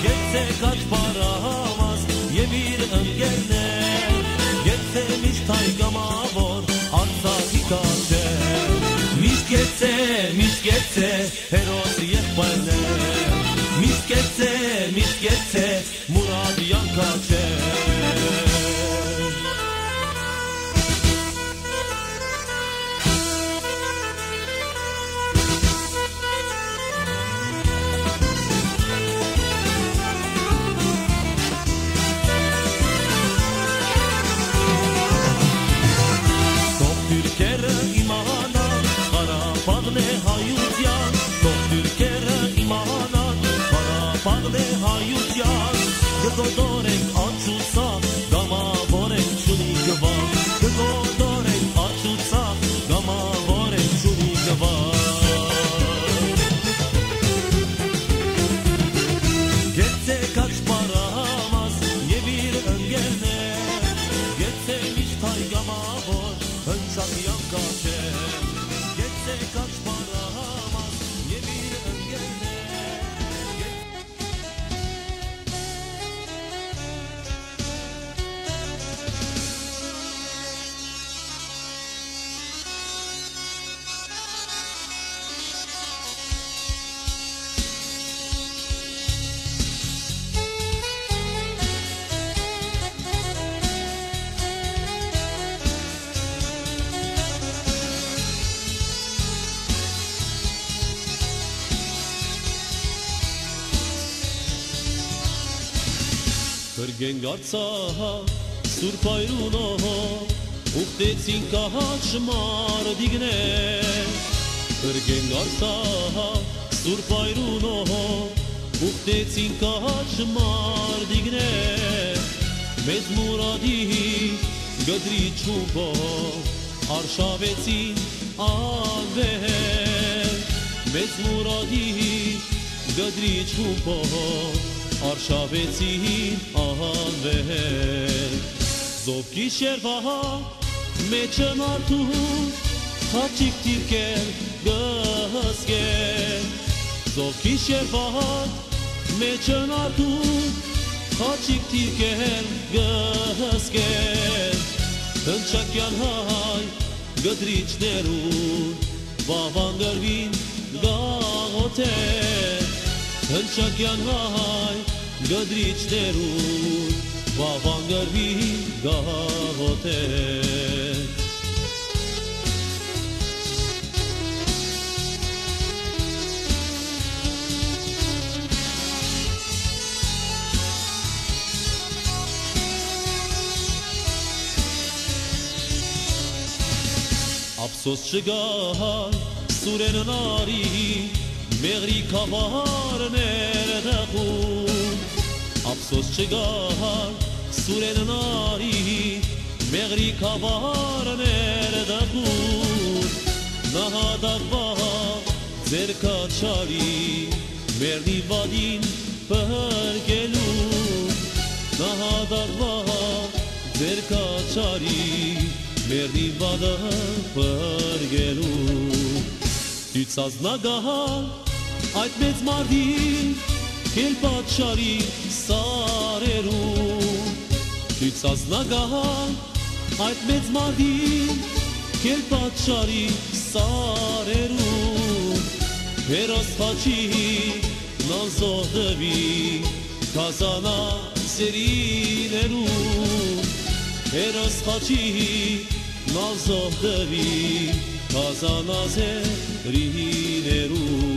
գեցե քաչ փառահամազ եւ իր ընկերներ, գեցե միշտ հայ կամավոր, Արցախի քաչեր, միշտ գեցե, միշտ գեցե, հերոս եղբայրներ, միշտ գեցե, միշտ գեցե, Մուրադի անքաչեր։ Թող թուրքերը իմանան, Ղարաբաղն է հայութեան, թող թուրքերը իմանան, Ղարաբաղն է հայութեան, կը կոտորենք աջ ու ցախ, կամաւոր ենք, չունի գուաղ, կը կոտորենք աջ ու ցախ, կամաւոր ենք, չունի գուաղ։ Գեցե քաչ փառահամազ եւ իր ընկերներ, գեցե միշտ հայ կամաւոր, հնչակի անքաչեր, գեցե քաչ փառահամազ եւ իր ընկերներ, գեցե Փրկենք Արցախ, Սուրբ Հայրունով, ուխտեցին քաջ մարտիկներ։ Փրկենք Արցախ, Սուրբ Հայրունով, ուխտեցին քաջ մարտիկներ։ Մեծ Մուրադի Կտրիչ խումբով արշաւեցին անվեր, մեծ մուրադի կտրիչ խումբով արշաւեցին անվեր։ Զովքի շերվա մեջը մարդու խաչիկ դիրքեր կը հսկեն։ Զովքի շերվա մեջը մարդու խաչիկ դիրքեր կը հսկեն։ Հնչակեան հայ կտրիչներուն վաւան կրուին գաղութեր։ Հնչակեան հայ կտրիչներուն վաւան կրուին գաղութեր։ Ափսոս չկայ Սուրէն Նարի, մեղրի գաւառներ դեղուն։ Ափսոս չկայ Սուրէն Նարի, մեղրի գաւառներ դեղուն։ Նահատակվա ձեր կաչարի, մերնի վատին փրկելու։ Նահատակվա ձեր կաչարի, մերնի վատը փրկելու։ Դիցած նագահան այդ մեծ մարդին, կել պատշարի սարերուն։ Դիցած նագահան այդ մեծ մարդին, կել պատշարի սարերուն։ Հերոս խաչի նանզող տուի, կազանա սերիներուն։ Հերոս խաչի նանզող տուի, կազանա սերիներուն։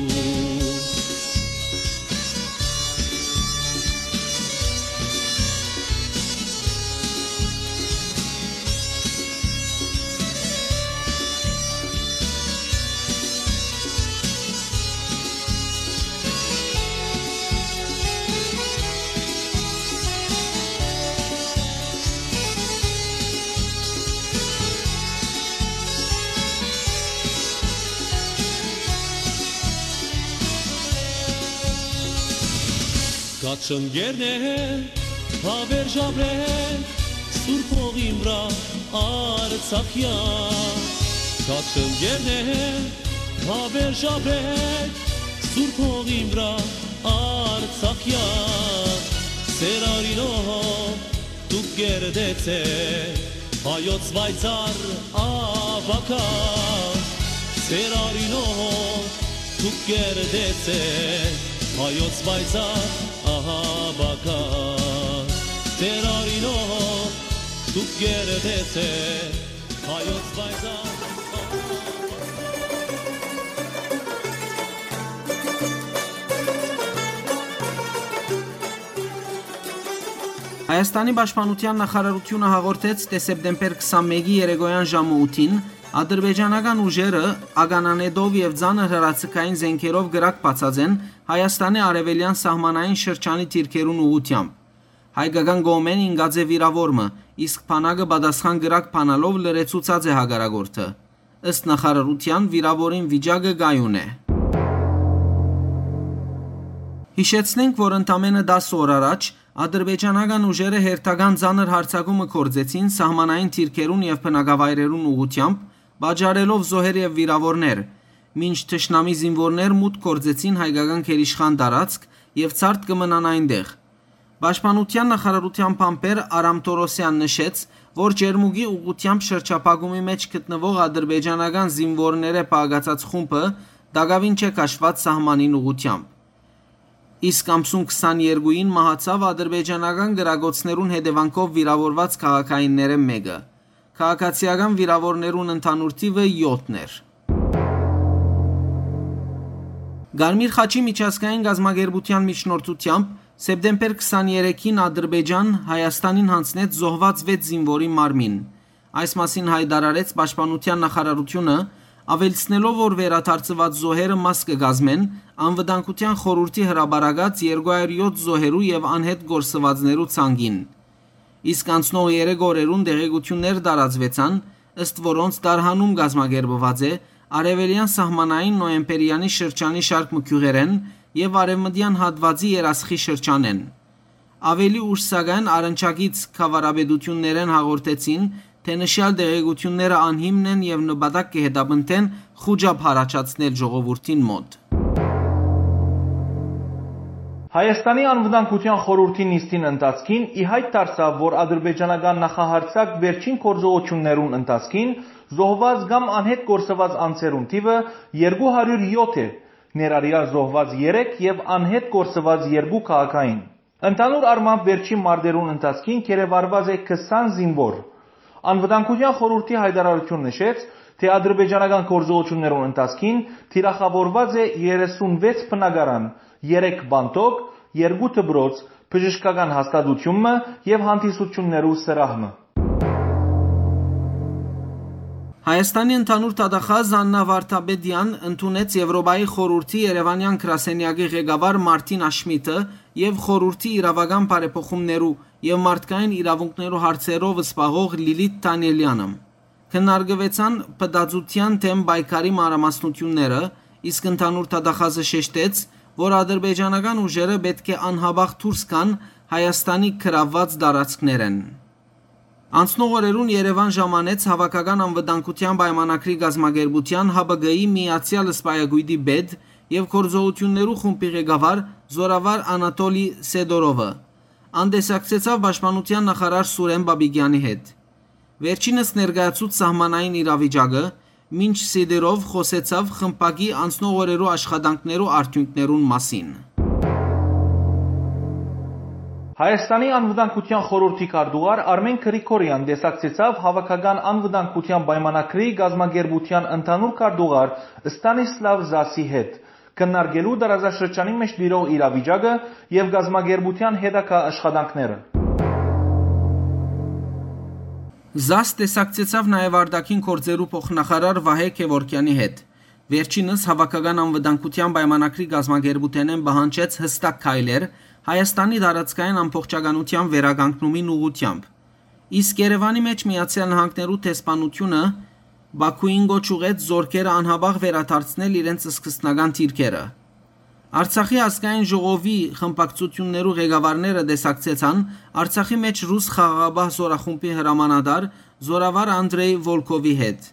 Կաչընկերներ, հավերժ ապրեք Սուրբ հողին վրայ Արցախեան։ Կաչընկերներ, հավերժ ապրեք Սուրբ հողին վրայ Արցախեան։ Սեր արինով դուք կերտեցէք հայոց պայծառ ապագան։ Սեր արինով դուք կերտեցէք հայոց պայծառ ապագան։ Սեր արինով դուք կերտեցէք հայոց պայծառ Հայաստանի պաշտպանութեան նախարարութիւնը հաղորդեց, թէ սեպտեմբեր քսանմէկի երեկոյան ժամը ութին ադրբեջանական ուժերը ականանետով եւ ծանր հրաձգային զէնքերով կրակ բացած են Հայաստանի արեւելեան սահմանային շրջանի դիրքերուն ուղղութեամբ։ Հայկական կողմէն ինկած է վիրաւոր մը, իսկ բանակը պատասխան կրակ բանալով լրացուցած է հակառակորդը։ Ըստ նախարարութեան, վիրաւորին վիճակը կայուն է։ Յիշեցնենք, որ ընդամենը տասը օր առաջ ադրբեջանական ուժերը հերթական ծանր յարձակումը գործեցին սահմանային դիրքերուն եւ բնակավայրերուն ուղղութեամբ, պատճառելով զոհեր եւ վիրաւորներ, մինչ թշնամի զինուորներ մուտք գործեցին հայկական գերիշխան տարածք եւ ցարդ կը մնան այնտեղ։ Պաշտպանութեան նախարարութեան բանբեր Արամ Թորոսեան նշեց, որ Ջերմուկի ուղղութեամբ շրջափակումի մէջ գտնուող ադրբեջանական զինուորներէ պակասած խումբը տակաւին չէ քաշուած սահմանին ուղղութեամբ։ Իսկ ամսուն քսաներկուին մահացաւ ադրբեջանական կրակոցներուն հետեւանքով վիրաւորուած քաղաքայիններէն մէկը։ Քաղաքացիական վիրաւորներուն ընդհանուր թիվը յոթն էր։ Կարմիր խաչի միջազգային կազմակերպութեան միջնորդութեամբ սեպտեմբեր քսաներեքին Ադրբեջան Հայաստանին յանձնեց զոհուած վեց զինուորի մարմին։ Այս մասին յայտարարեց Պաշտպանութեան նախարարութիւնը, աւելցնելով, որ վերադարձուած զոհերը մաս կը կազմեն Անվտանգութեան խորհուրդի հրապարակած երկու հարյուր յոթ զոհերու եւ անհետ կորսուածներու ցանկին։ Իսկ անցնող երեք օրերուն տեղեկութիւններ տարածուեցան, ըստ որոնց տարհանում կազմակերպուած է արեւելեան սահմանային Նոյեմպերեանի շրջանի շարք մը գիւղերէն եւ արեւմտեան հատուածի Երասխի շրջանէն։ Աւելի ուշ, սակայն, առնչակից գաւառապետութիւններէն հաղորդեցին, թէ նշեալ տեղեկութիւնները անհիմն են եւ նպատակ կը հետապնդեն խուճապ յառաջացնել ժողովուրդին մօտ։ Հայաստանի Անվտանգութեան խորհուրդի նիստին ընթացքին ի հայտ դարձաւ, որ ադրբեջանական նախահարձակ վերջին գործողութիւններուն ընթացքին զոհուած կամ անհետ կորսուած անձերուն թիւը երկու հարիւր յոթ է, ներառեալ զոհուած երեք եւ անհետ կորսուած երկու քաղաքային։ Ընդհանուր առմամբ, վերջին մարտերուն ընթացքին գերեվարուած է քսան զինուոր։ Անվտանգութեան խորհուրդի հայտարարութիւն նշեց, թէ ադրբեջանական գործողութիւններուն ընթացքին թիրախաւորուած է երեսունվեց բնակարան, երեք պանդոկ, երկու դպրոց, բժշկական հաստատութիւն մը եւ հանդիսութիւններու սրահ մը։ Հայաստանի ընդհանուր դատախազ Աննա Վարդապետեան ընդունեց Եվրոպայի խորհուրդի Երեւանեան գրասենեակի ղեկավար Մարտին Աշմիթը եւ խորհուրդի իրավական բարեփոխումներու եւ մարդկային իրաւունքներու հարցերով զբաղող Լիլիթ Դանիելյանը։ Քննարկուեցան փտածութեան դէմ պայքարի մանրամասնութիւնները, իսկ ընդհանուր դատախազը շեշտեց, որ ադրբեջանական ուժերը պէտք է անհապաղ դուրս գան Հայաստանի գրաւուած տարածքներէն։ Անցնող օրերուն Երեւան ժամանեց Հաւաքական անվտանգութեան պայմանագրի կազմակերպութեան Հ Բ Գ-ի Միացեալ Սպայակոյտի պետ եւ գործողութիւններու խումբի ղեկավար զօրավար Անատոլի Սեդորովը։ Ան տեսակցեցաւ պաշտպանութեան նախարար Սուրեն Պապիկեանի հետ։ Վերջինս ներկայացուց սահմանային իրավիճակը, մինչ Սեդորով խօսեցաւ խմբակի անցնող օրերու աշխատանքներու արդիւնքներուն մասին։ Հայաստանի Անվտանգութեան խորհրդի քարտուղար Արմեն Գրիգորեան տեսակցեցաւ Հաւաքական անվտանգութեան պայմանագրի կազմակերպութեան ընդհանուր քարտուղար Ստանիսլավ Զասի հետ, քննարկելու տարածաշրջանի մէջ տիրող իրավիճակը եւ կազմակերպութեան հետագայ աշխատանքները։ Զաս տեսակցեցաւ նաեւ արտաքին գործերու փոխնախարար Վահէ Գեւորգեանի հետ։ Վերջինս Հաւաքական անվտանգութեան պայմանագրի կազմակերպութենէն պահանջեց յստակ քայլեր Հայաստանի տարածքային ամբողջականութեան վերականգնումին ուղղութեամբ։ Իսկ Երեւանի մէջ Միացեալ Նահանգներու դեսպանութիւնը Բաքուին կոչ ուղղեց զօրքերը անհապաղ վերադարձնել իրենց սկզբնական դիրքերը։ Արցախի ազգային ժողովի խմբակցութիւններու ղեկավարները տեսակցեցան Արցախի մէջ ռուս խաղաղապահ զօրախումբի հրամանատար զօրավար Անդրեյ Վոլքովի հետ։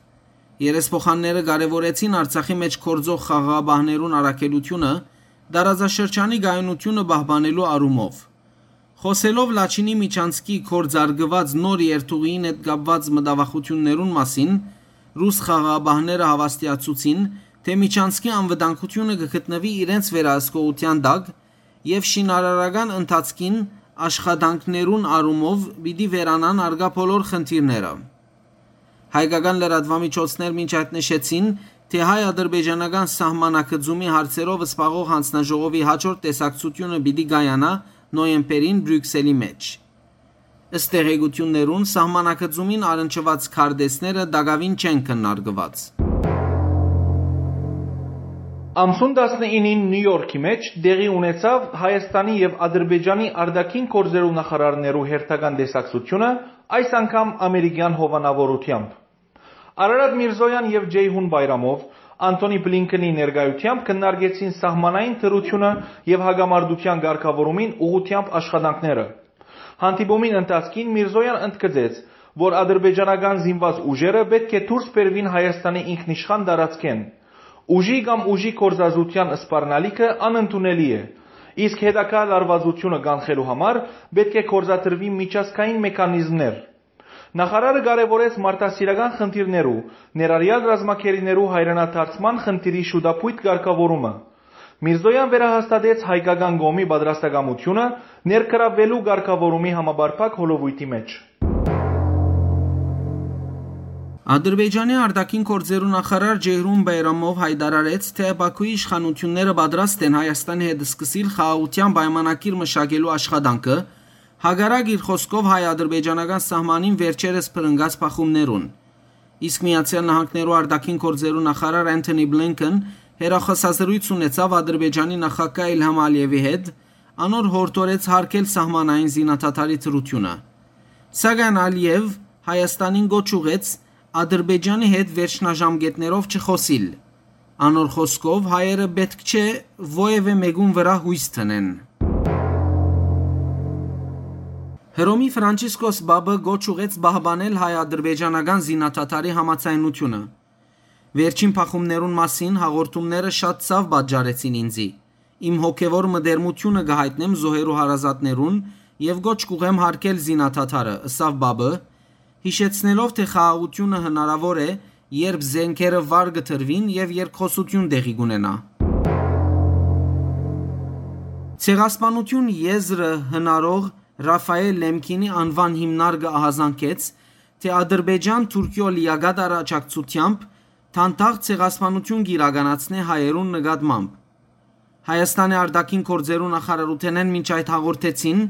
Երեսփոխանները կարեւորեցին Արցախի մէջ գործող խաղաղապահներուն առաքելութիւնը, տարածաշրջանի կայունութիւնը պահպանելու առումով։ Խօսելով Լաչինի Միչանցքի գործարկուած նոր երթուղիին հետ կապուած մտավախութիւններուն մասին, ռուս խաղաղապահները հաւաստիացուցին, թէ Միչանցքի անվտանգութիւնը կը գտնուի իրենց վերահսկողութեան տակ եւ շինարարական ընթացքին աշխատանքներուն առումով պիտի վերանան առկայ բոլոր խնդիրները։ Հայկական լրատուամիջոցներ մինչ այդ նշեցին, թէ հայ-ադրբեջանական սահմանագծումի հարցերով զբաղող յանձնաժողովի յաջորդ տեսակցութիւնը պիտի կայանայ նոյեմբերին Բրիւքսելի մէջ։ Ըստ տեղեկութիւններուն, սահմանագծումին առնչուած քարտէսները տակաւին չեն քննարկուած։ Ամսուն տասնինին Նիու Յորքի մէջ տեղի ունեցաւ Հայաստանի եւ Ադրբեջանի արտաքին գործերու նախարարներու հերթական տեսակցութիւնը, այս անգամ ամերիկեան հովանաւորութեամբ։ Արարատ Միրզոյան եւ Ջեյհուն Բայրամով Անթոնի Բլինքենի ներկայութեամբ քննարկեցին սահմանային դրութիւնը եւ հակամարտութեան կարգաւորումին ուղղութեամբ աշխատանքները։ Հանդիպումին ընթացքին Միրզոյան ընդգծեց, որ ադրբեջանական զինուած ուժերը պէտք է դուրս բերուին Հայաստանի ինքնիշխան տարածքէն։ Ուժի կամ ուժի գործածութեան սպառնալիքը անընդունելի է, իսկ հետագայ լարուածութիւնը կանխելու համար պէտք է գործադրուին միջազգային մեխանիզմներ։ Նախարարը կարեւորեց մարդասիրական խնդիրներու, ներառեալ ռազմագերիներու հայրենադարձման խնդիրի շուտափոյթ կարգաւորումը։ Միրզոյան վերահաստատեց հայկական կողմի պատրաստակամութիւնը ներգրավվելու կարգաւորումի համապարփակ հոլովոյթի մէջ։ Ադրբեջանի արտաքին գործերու նախարար Ջեյհուն Բայրամով հայտարարեց, թէ Բաքուի իշխանութիւնները պատրաստ են Հայաստանի հետ սկսիլ խաղաղութեան պայմանագիր մշակելու աշխատանքը, հակառակ, իր խօսքով, հայ-ադրբեջանական սահմանին վերջերս բռնկած բախումներուն։ Իսկ Միացեալ Նահանգներու արտաքին գործերու նախարար Անթոնի Բլինքեն հեռախօսազրոյց ունեցաւ Ադրբեջանի նախագահ Իլհամ Ալիևի հետ, անոր յորդորեց յարգել սահմանային զինադադարի դրութիւնը։ Սակայն Ալիեւ Հայաստանին կոչ ուղղեց Ադրբեջանի հետ վերջնաժամկետներով չխօսիլ։ Անոր խօսքով, հայերը պէտք չէ որեւէ մէկուն վրայ յոյս դնեն։ Հռոմի Ֆրանցիսկոս Պապը կոչ ուղղեց պահպանել հայ-ադրբեջանական զինադադարի համաձայնութիւնը։ Վերջին բախումներուն մասին հաղորդումները շատ ցաւ պատճառեցին ինծի։ Իմ հոգեւոր մտերմութիւնը կը յայտնեմ զոհերու հարազատներուն եւ կոչ կ'ուղղեմ յարգել զինադադարը, ըսաւ Պապը, յիշեցնելով, թէ խաղաղութիւնը հնարաւոր է, երբ զէնքերը վար կը դրուին եւ երկխօսութիւն տեղի կ'ունենայ։ Ցեղասպանութիւն եզրը հնարող Ռաֆայէլ Լեմքինի անուան հիմնարկը ահազանգեց, թէ Ադրբեջան Թուրքիոյ լիակատար աջակցութեամբ դանդաղ ցեղասպանութիւն կ'իրականացնէ հայերուն նկատմամբ։ Հայաստանի արտաքին գործերու նախարարութենէն մինչ այդ հաղորդեցին,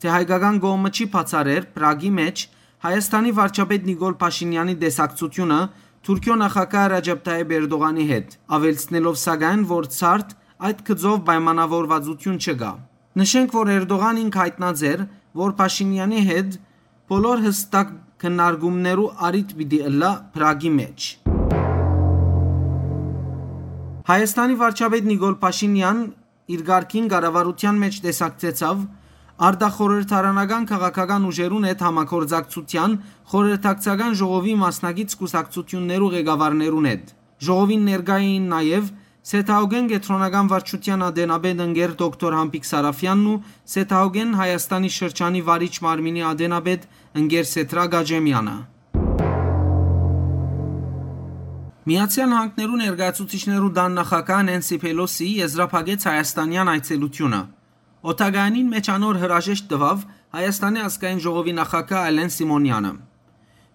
թէ հայկական կողմը չի բացառեր Պրագի մէջ Հայաստանի վարչապետ Նիկոլ Փաշինեանի տեսակցութիւնը Թուրքիոյ նախագահ Ռաջեփ Թայեփ Էրտողանի հետ, աւելցնելով սակայն, որ ցարդ այդ գծով պայմանաւորուածութիւն չկայ։ Նշենք, որ Էրտողան ինք յայտնած էր, որ Փաշինեանի հետ բոլոր յստակ քննարկումներու առիթ պիտի ըլլայ Պրագի մէջ։ Հայաստանի վարչապետ Նիկոլ Փաշինեան իր կարգին կառավարութեան մէջ տեսակցեցաւ արտախորհրդարանական քաղաքական ուժերուն հետ համագործակցութեան խորհրդակցական ժողովի մասնակից կուսակցութիւններու ղեկավարներուն հետ։ Ժողովին ներկայ էին նաեւ Սեթաուգեն կեդրոնական վարչութեան ատենապետ ընկեր դոկտոր Համբիկ Սարաֆեանն ու Սեթաուգեն Հայաստանի շրջանի վարիչ մարմինի ատենապետ ընկեր Սեդրակ Աճեմեանը։ Միացեալ Նահանգներու ներկայացուցիչներու տան նախագահ Նենսի Փելոսի եզրափակեց հայաստանեան այցելութիւնը։ Օդակայանին մէջ անոր հրաժեշտ տուաւ Հայաստանի ազգային ժողովի նախագահ Ալեն Սիմոնեանը։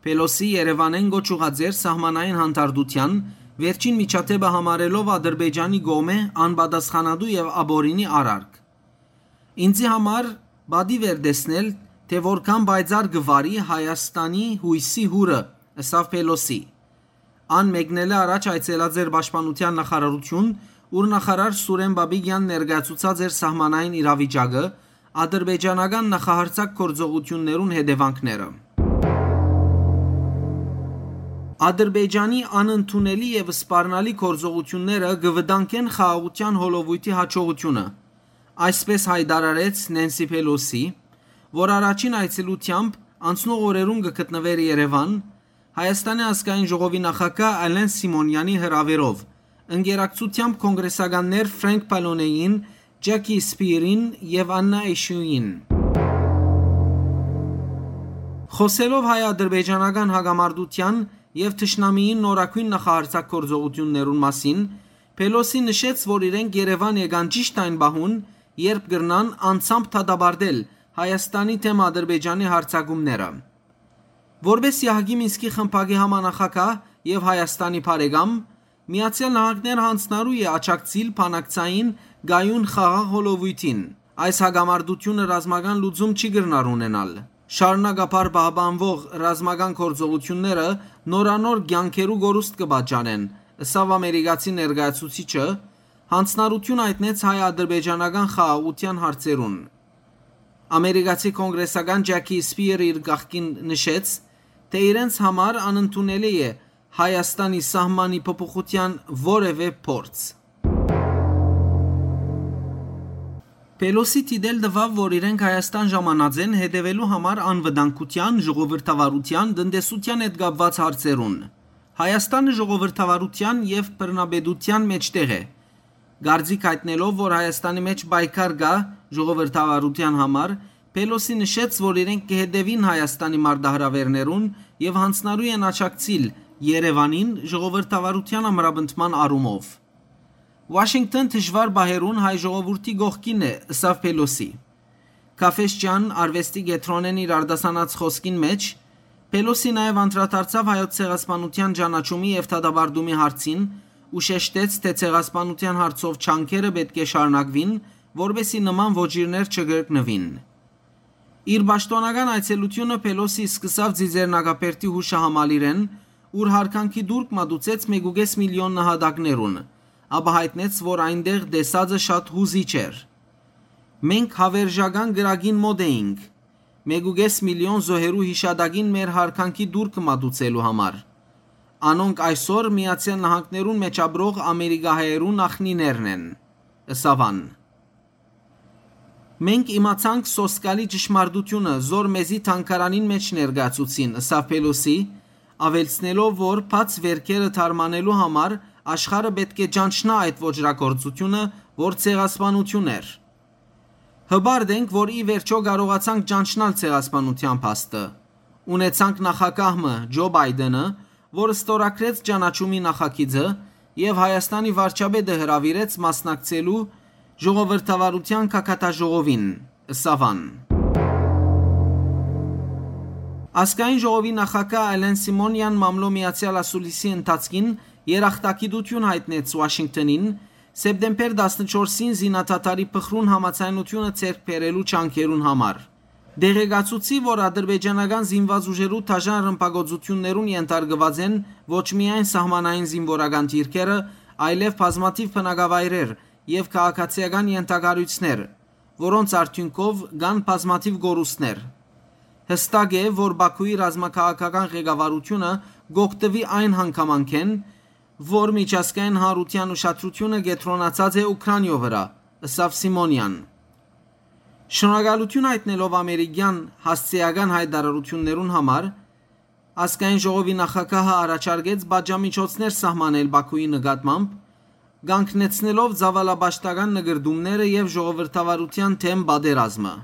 Փելոսի Երեւանէն կոչ ուղղած էր սահմանային հանդարտութեան, վերջին միջադէպը համարելով Ադրբեջանի կողմէ անպատասխանատու եւ ապօրինի արարք։ «Ինծի համար պատիւ էր տեսնել, թէ որքան պայծառ կը վարի Հայաստանի յոյսի յուրը», ըսաւ Փելոսի։ Ան մեկնելէ առաջ այցելած էր Պաշտպանութեան նախարարութիւն, ուր նախարար Սուրեն Պապիկեան ներկայացուցած էր սահմանային իրավիճակը, ադրբեջանական նախահարձակ գործողութիւններուն հետեւանքները։ Ադրբեջանի անընդունելի եւ սպառնալի գործողութիւնները կը վտանգեն խաղաղութեան հոլովոյթի յաջողութիւնը, այսպէս յայտարարեց Նենսի Փելոսի, որ առաջին այցելութեամբ անցնող օրերուն կը գտնուէր Երեւան, Հայաստանի ազգային ժողովի նախագահ Ալեն Սիմոնեանի հրաւերով, ընկերակցութեամբ կոնգրեսականներ Ֆրենկ Պալոնեին, Ջակի Սպիրին եւ Աննա Էշուին։ Խօսելով հայ-ադրբեջանական հակամարտութեան եւ թշնամիին նորագոյն նախահարձակ գործողութիւններուն մասին, Փելոսի նշեց, որ իրենք Երեւան եկան ճիշդ այն պահուն, երբ կրնան անձամբ դատապարտել Հայաստանի դէմ Ադրբեջանի հարձակումները։ Որպէս Յահկի Մինսկի խմբակի համանախագահ եւ Հայաստանի բարեկամ, Միացեալ Նահանգները յանձնառու է աջակցիլ բանակցային կայուն խաղաղ հոլովոյթին։ Այս հակամարտութիւնը ռազմական լուծում չի կրնար ունենալ։ Շարունակաբար պահպանուող ռազմական գործողութիւնները նորանոր կեանքերու կորուստ կը պատճառեն, ըսաւ ամերիկացի ներկայացուցիչը, յանձնառութիւն յայտնեց հայ-ադրբեջանական խաղաղութեան հարցերուն։ Ամերիկացի կոնգրեսական Ջակի Սպիրը իր կողքին նշեց, թէ իրենց համար անընդունելի է Հայաստանի սահմանի փոփոխութեան որեւէ փորձ։ Փելոսի դիտել տուաւ, որ իրենք Հայաստան ժամանած են հետեւելու համար անվտանգութեան, ժողովրդավարութեան, տնտեսութեան հետ կապուած հարցերուն։ Հայաստանը ժողովրդավարութեան եւ բռնապետութեան մէջտեղ է։ Կարծիք յայտնելով, որ Հայաստանի մէջ պայքար կայ ժողովրդավարութեան համար, Փելոսի նշեց, որ իրենք կը հետեւին Հայաստանի մարտահրաւէրներուն եւ յանձնառու են աջակցիլ Երեւանին ժողովրդավարութեան ամրապնդման առումով։ «Ուաշինկթոն դժուար պահերուն հայ ժողովուրդի կողքին է», ըսաւ Փելոսի։ Քաֆէշճան արուեստի կեդրոնէն իր արտասանած խօսքին մէջ Փելոսի նաեւ անդրադարձաւ հայոց ցեղասպանութեան ճանաչումի եւ դատապարտումի հարցին ու շեշտեց, թէ ցեղասպանութեան հարցով ջանքերը պէտք է շարունակուին, որպէսզի նման ոճիրներ չկրկնուին։ Իր պաշտօնական այցելութիւնը Փելոսի սկսաւ Ծիծեռնակաբերդի յուշահամալիրէն, ուր յարգանքի տուրք մատուցեց մէկ ու կէս միլիոն նահատակներուն, ապա յայտնեց, որ այնտեղ տեսածը շատ յուզիչ էր։ «Մենք Հավերժական կրակին մօտ էինք։ մէկ ու կէս միլիոն զոհերու յիշատակին մեր յարգանքի տուրքը մատուցելու համար։ Անոնք այսօր Միացեալ Նահանգներուն մէջ ապրող ամերիկահայերու նախնիներն են, ըսաւ ան։ Մենք իմացանք սոսկալի ճշմարտությունը, զոր մեզի թանգարանին մէջ ներկայացուցին, ըսաւ Փելոսի, աւելցնելով, որ բաց վէրքերը դարմանելու համար աշխարհը պէտք է ճանչնայ այդ ոճրագործությունը, որ ցեղասպանություն էր։ Հպարտ ենք, որ ի վերջոյ կարողացանք ճանչնալ ցեղասպանութեան փաստը։ Ունեցանք նախագահ մը, Ջո Պայտենը, որ ստորագրեց ճանաչումի նախագիծը եւ Հայաստանի վարչապետը հրաւիրեց մասնակցելու ժողովրդավարութեան գագաթաժողովին, ըսաւ ան։ Ազգային ժողովի նախագահ Ալեն Սիմոնեան մամլոյ միացեալ ասուլիսի ընթացքին երախտագիտութիւն յայտնեց Ուաշինկթոնին, սեպտեմբեր տասնչորսին զինադադարի փխրուն համաձայնութիւնը ձեռք բերելու ջանքերուն համար։ Տեղեկացուցի, որ ադրբեջանական զինված ուժերու դաժան ռմբակոծութիւններուն ենթարկուած են ոչ միայն սահմանային զինուորական դիրքերը, այլեւ բազմաթիւ բնակավայրեր եւ քաղաքացիական ենթակառոյցներ, որոնց արդիւնքով կան բազմաթիւ կորուստներ։ Յստակ է, որ Բաքուի ռազմաքաղաքական ղեկավարութիւնը կ'օգտուի այն հանգամանքէն, որ միջազգային հանրութեան ուշադրութիւնը կեդրոնացած է Ուքրանիոյ վրայ, ըսաւ Սիմոնեան։ Շնորհակալութիւն յայտնելով ամերիկեան հասցէական յայտարարութիւններուն համար, ազգային ժողովի նախագահը առաջարկեց պատժամիջոցներ սահմանել Բաքուի նկատմամբ, կանգնեցնելով ծաւալապաշտական նկրտումները եւ ժողովրդավարութեան դէմ պատերազմը։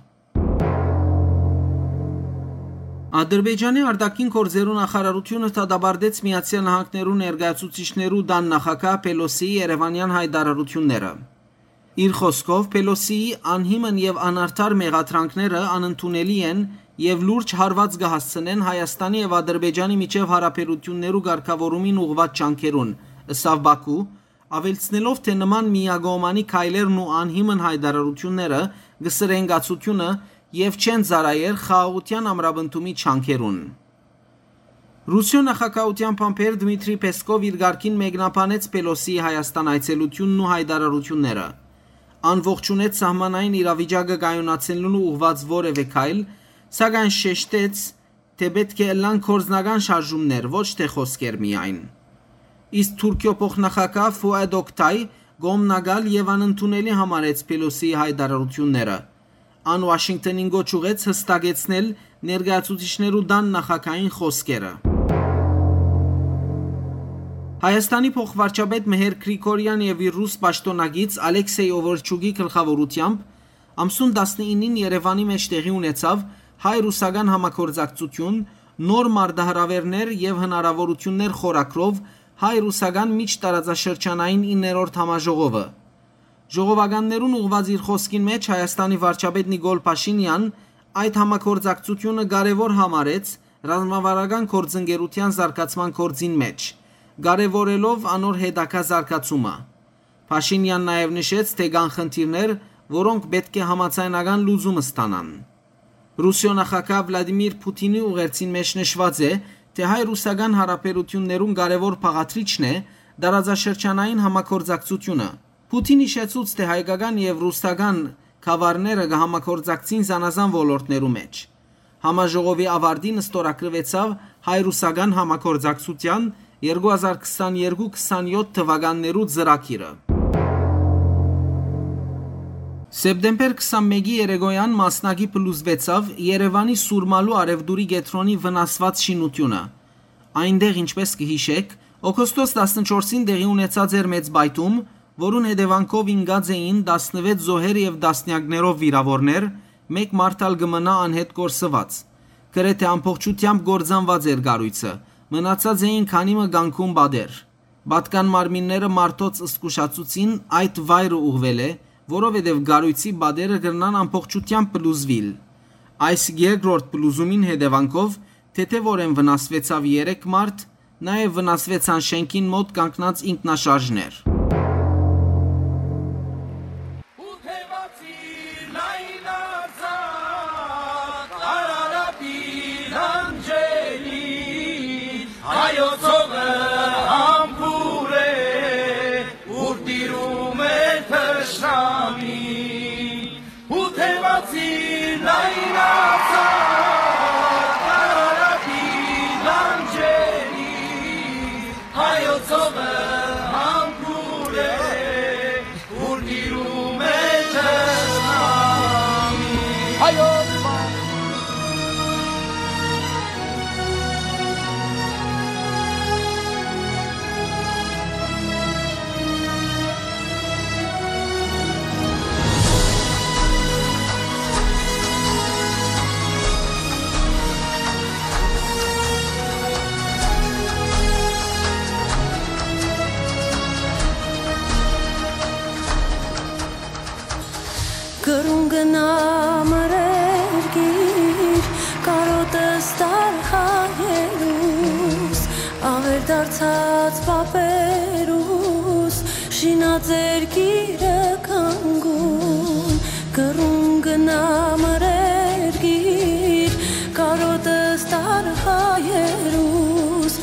Ադրբեջանի արտաքին գործերու նախարարութիւնը դատապարտեց Միացեալ Նահանգներու ներկայացուցիչներու տան նախագահ Փելոսիի երեւանեան յայտարարութիւնները։ Իր խօսքով, Փելոսիի անհիմն եւ անարդար մեղադրանքները անընդունելի են եւ լուրջ հարուած կը հասցնեն Հայաստանի եւ Ադրբեջանի միջեւ յարաբերութիւններու կարգաւորումին ուղղուած ջանքերուն, ըսաւ Բաքու, աւելցնելով, թէ նման միակողմանի քայլերն ու անհիմն յայտարարութիւնները կը սրեն կացութիւնը եւ չեն ծառայեր խաղաղութեան ամրապնդումի ջանքերուն։ Ռուսիոյ նախագահութեան բանբեր Դմիտրի Պեսկով իր կարգին մեկնաբանեց Փելոսիի Հայաստան այցելութիւնն ու յայտարարութիւնները։ Ան ողջունեց սահմանային իրավիճակը կայունացնելու ուղղուած որեւէ քայլ, սակայն շեշտեց, թէ պէտք է ըլլան գործնական շարժումներ, ոչ թէ խօսքեր միայն։ Իսկ Թուրքիոյ փոխնախագահ Ֆուադ Օկտայ կողմնակալ եւ անընդունելի համարեց Փելոսիի յայտարարութիւնները։ Ան Ուաշինկթոնին կոչ ուղղեց յստակեցնել ներկայացուցիչներու տան նախագահին խօսքերը։ Հայաստանի փոխվարչապետ Մհեր Գրիգորեան եւ իր ռուս պաշտօնակից Ալեքսեյ Օվորչուկի գլխաւորութեամբ ամսուն տասնինին Երեւանի մէջ տեղի ունեցաւ հայ-ռուսական համագործակցութիւն, նոր մարտահրաւէրներ եւ հնարաւորութիւններ խորագրով հայ-ռուսական միջտարածաշրջանային իններորդ համաժողովը։ Ժողովականներուն ուղղուած իր խօսքին մէջ Հայաստանի վարչապետ Նիկոլ Փաշինեան այդ համագործակցութիւնը կարեւոր համարեց ռազմավարական գործընկերութեան զարգացման գործին մէջ, կարեւորելով անոր հետագայ զարգացումը։ Փաշինեան նաեւ նշեց, թէ կան խնդիրներ, որոնք պէտք է համաձայնական լուծում ստանան։ Ռուսիոյ նախագահ Վլադիմիր Փութինի ուղերձին մէջ նշուած է, թէ հայ-ռուսական յարաբերութիւններուն կարեւոր բաղադրիչն է տարածաշրջանային համագործակցութիւնը։ Փութին յիշեցուց, թէ հայկական եւ ռուսական գաւառները կը համագործակցին զանազան ոլորտներու մէջ։ Համաժողովի աւարտին ստորագրուեցաւ հայ-ռուսական համագործակցութեան երկու հազար քսաներկու քսանեօթ թուականներու ծրագիրը։ Սեպտեմբեր քսանմէկի երեկոյեան մասնակի փլուզուեցաւ Երեւանի Սուրմալու արեւտուրի կեդրոնի վնասուած շինութիւնը։ Այնտեղ, ինչպէս կը յիշէք, օգոստոս տասնչորսին տեղի ունեցած էր մեծ պայթում, որուն հետեւանքով ինկած էին տասնվեց զոհեր եւ տասնեակներով վիրաւորներ, մէկ մարդ ալ կը մնայ անհետ կորսուած։ Գրեթէ ամբողջութեամբ կործանուած էր կառոյցը, մնացած էին քանի մը կանգուն պատեր։ Պատկան մարմինները մարդոց զգուշացուցին այդ վայրը ուղղուելէ, որովհետեւ կառոյցի պատերը կրնան ամբողջութեամբ փլուզուիլ։ Այս երկրորդ փլուզումին հետեւանքով թեթեւօրէն վնասուեցաւ երեք մարդ, նաեւ վնասուեցան շէնքին մօտ կանգնած ինքնաշարժներ։ Գնամ ըր երկիր, կարօտս տար հայերուս, աւեր դարձած պապերուս, շինած երկիրը կանգուն, կռուն գնամ ըր երկիր, կարօտս տար հայերուս,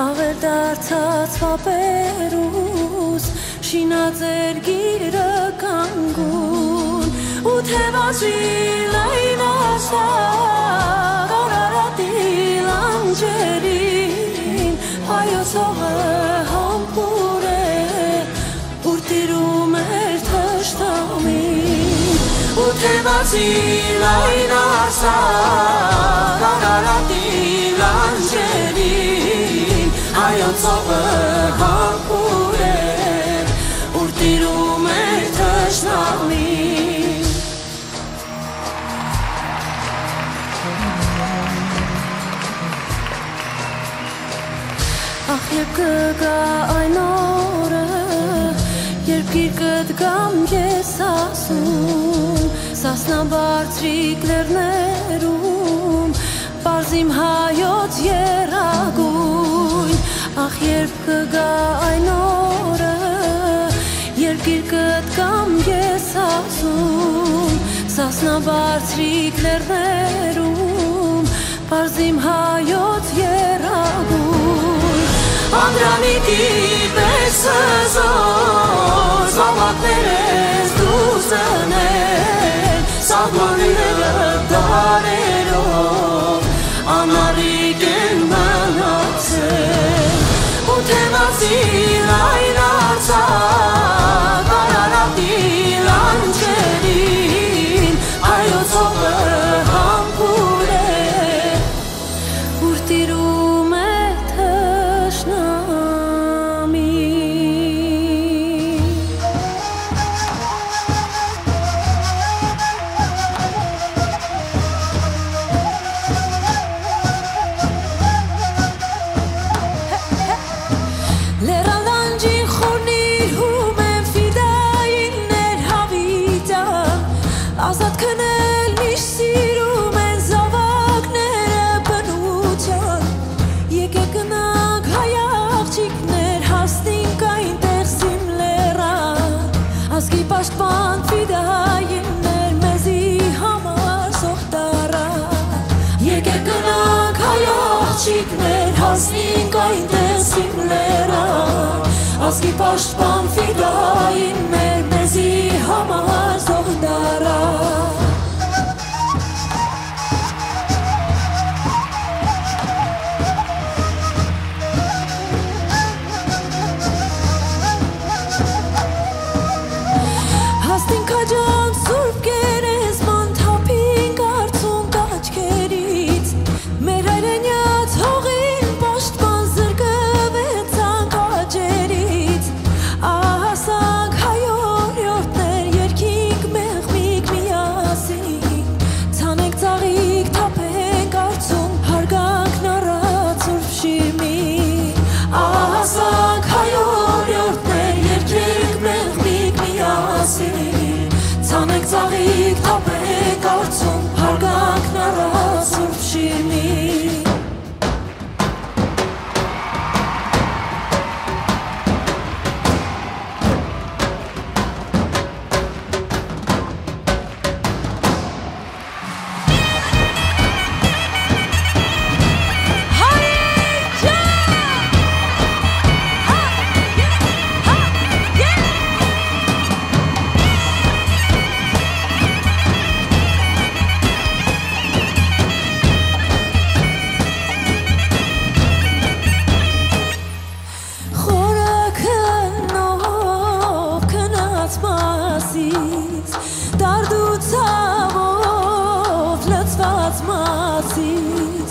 աւեր դարձած պապերուս, շինած երկիրը կանգուն, ու թեւացի լայն աստակ, Արարատի լանջերին, հայոց հողը համբուրէ, ուր տիրում էր թշնամին, ու թեւացի լայն արձակ, Արարատի լանջերին, հայոց հողը համբուրէ, ուր տիրում էր թշնամին։ Ախ, երբ կը գայ այն օրը, երբ գիրկդ կամ ես ասում, Սասնաբարձրիկ լեռներում, պարզ իմ հայոց եռագոյն։ Ախ, երբ կը գայ այն օրը, երբ գիրկդ կամ ես ասում, Սասնաբարձրիկ լեռներում, պարզ իմ հայոց եռագոյն։ Անդրանիկի պես հզոր, զաւակներս դու զնեն, սահմանները դարերով անառիկ են մնացել, ու թեւացի լայն արձակ, Արարատի լանջերին, հայոց հողը համբուրէ, ուր տիրում է թշնամի։ Լեռան լանջին խորնիր հում են ֆիդայիններ, հավիտան, ազատ քնել միշտ սիրում են զաւակները բնութեան։ Եկեք գնանք, հայ աղջիկներ, հասնենք այնտեղ, սիմ լեռան, ազգի պաշտպան ֆիդայիններ, մեզի համար զոհ տարան։ Եկեք գնանք, հայ աղջիկներ, հասնենք այնտեղ, սիմ լեռան, ազգի պաշտպան ֆիդայիններ, մեզի համար զոհ տարան։ Հասնին քաջան Սուրբ Գերեզման, թափին կարցունք աչքերից, մեր հայրենյաց հողին պաշտպան, զրկվեցանք աճերից, ահասանք հայ օրիորդներ, երգինք մեղմիկ միասին, ցանենք ծաղիկ, թափենք արցունք, հարգանքն առած Սուրբ Շիրմին, ահասանք հայ օրիորդներ, երգենք մեղմիկ միասին, ցանենք ծաղիկ, թափենք արցունք, հարգանքն առած Սուրբ Շիրմին։ Խորը քննով քնած Մասիս, դարդու ցաւով լցված Մասիս,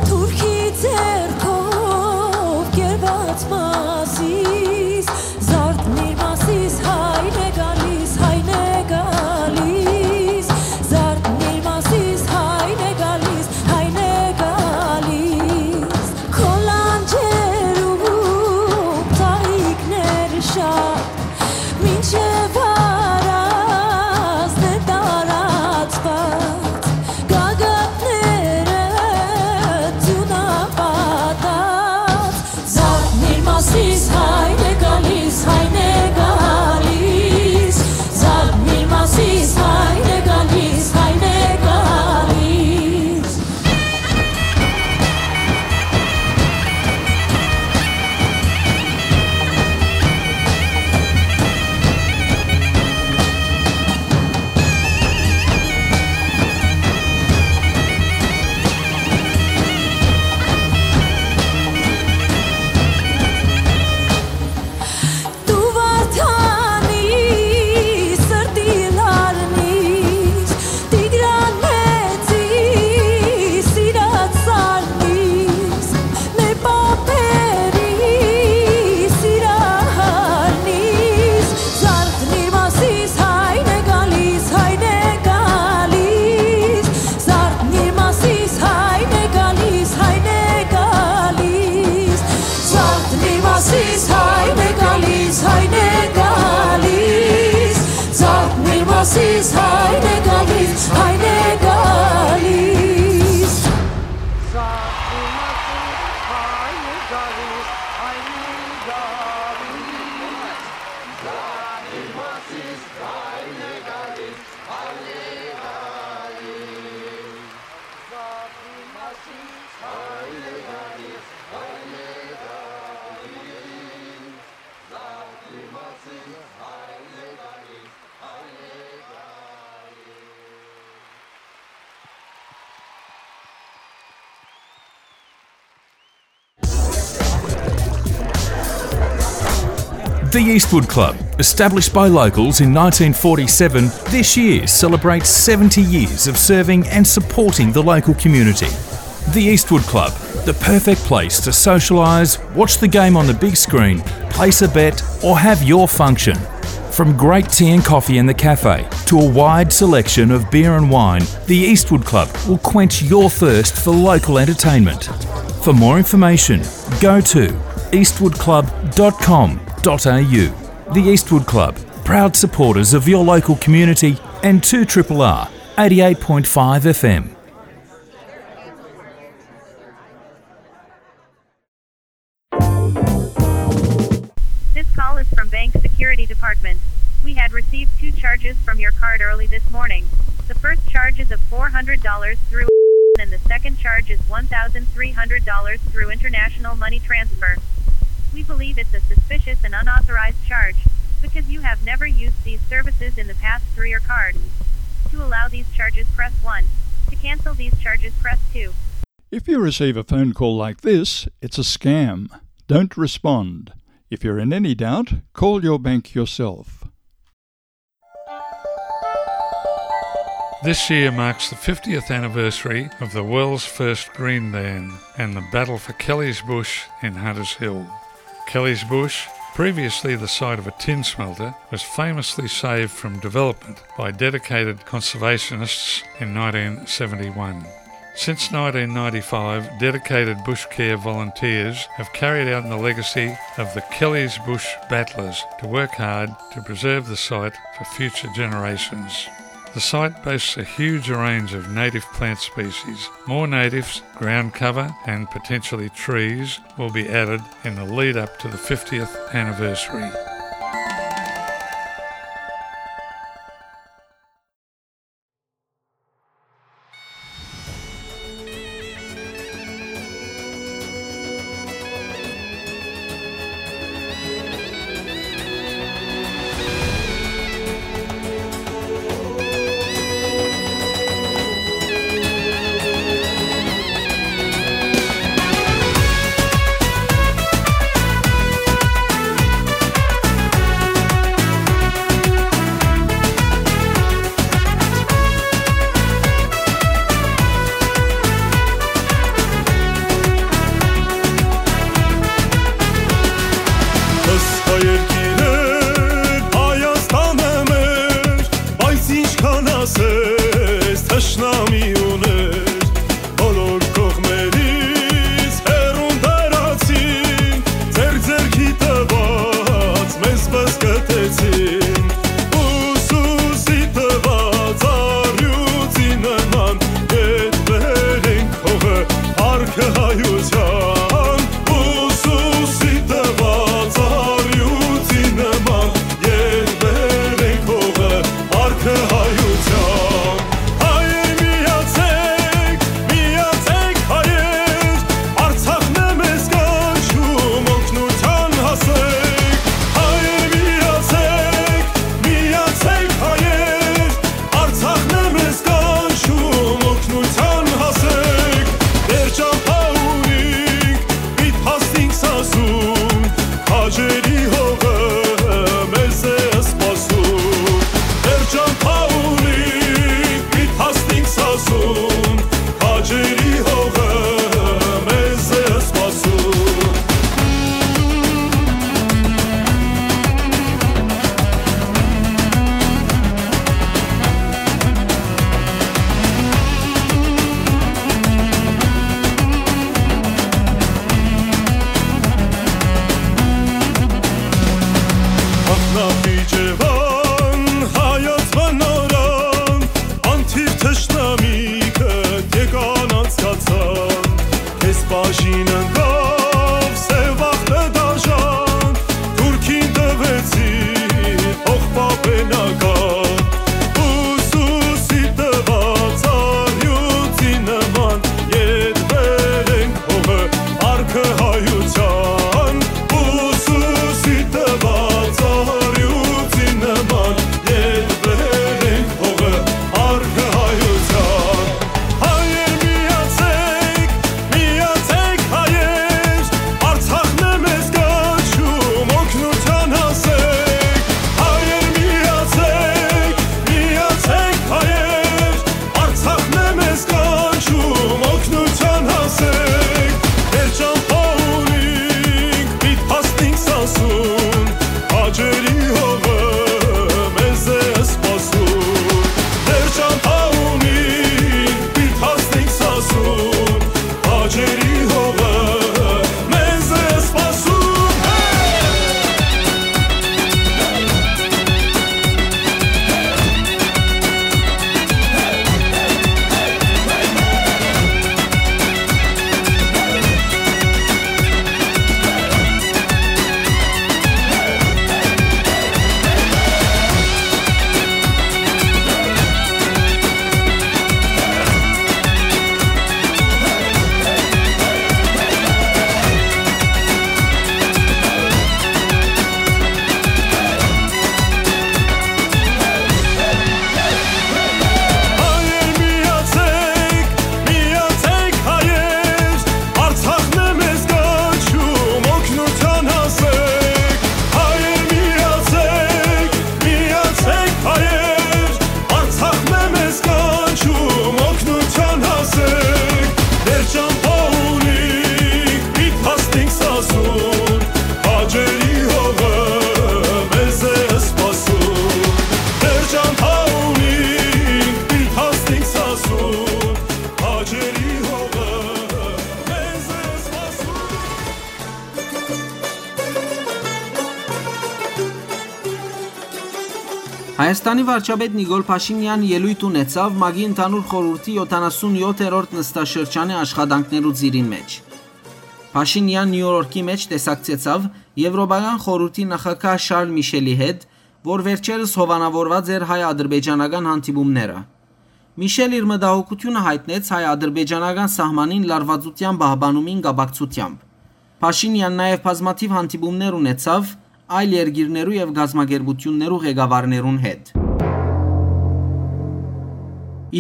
թուրքի ձեռքով կերված Մասիս, զարթնիր Մասիս, հայն է գալիս, հայն է գալիս, զարթնիր Մասիս, հայն է գալիս, հայն է գալիս։ Քո լանջերում ծաղիկներ շատ, մինչեւ առանձն է տարան The Eastwood Club, established by locals in nineteen forty-seven, this year celebrates seventy years of serving and supporting the local community. The Eastwood Club, the perfect place to socialise, watch the game on the big screen, place a bet, or have your function. From great tea and coffee in the cafe to a wide selection of beer and wine, the Eastwood Club will quench your thirst for local entertainment. For more information, go to eastwood club dot com dot a u. The Eastwood Club, proud supporters of your local community and two triple R, eighty-eight point five F M. This call is from Bank Security Department. We had received two charges from your card early this morning. The first charge is of four hundred dollars through and the second charge is one thousand three hundred dollars through international money transfer. We believe it's a suspicious and unauthorized charge because you have never used these services in the past through your card. To allow these charges, press one. To cancel these charges, press two. If you receive a phone call like this, it's a scam. Don't respond. If you're in any doubt, call your bank yourself. This year marks the fiftieth anniversary of the world's first Green Ban and the battle for Kelly's Bush in Hunters Hill. Kelly's Bush, previously the site of a tin smelter, was famously saved from development by dedicated conservationists in nineteen seventy-one. Since nineteen ninety-five, dedicated bush care volunteers have carried out the legacy of the Kelly's Bush Battlers to work hard to preserve the site for future generations. The site boasts a huge range of native plant species. More natives, ground cover, and potentially trees will be added in the lead up to the fiftieth anniversary. Հայաստանի վարչապետ Նիկոլ Փաշինեան ելոյթ ունեցաւ ՄԱԿ-ի Ընդհանուր Խորհուրդի յոթանասուն յոթերորդ նստաշրջանի աշխատանքներու ծիրին մէջ։ Փաշինեան Նիու Յորքի մէջ տեսակցեցաւ Եվրոպական խորհուրդի նախագահ Շարլ Միշելի հետ, որ վերջերս հովանաւորուած էր հայ-ադրբեջանական հանդիպումները։ Միշել իր մտահոգութիւնը յայտնեց հայ-ադրբեջանական սահմանին լարուածութեան պահպանումին կապակցութեամբ։ Փաշինեան նաեւ բազմաթիւ հանդիպումներ ունեցաւ այլ երկիրներու եւ կազմակերպութիւններու ղեկավարներուն հետ։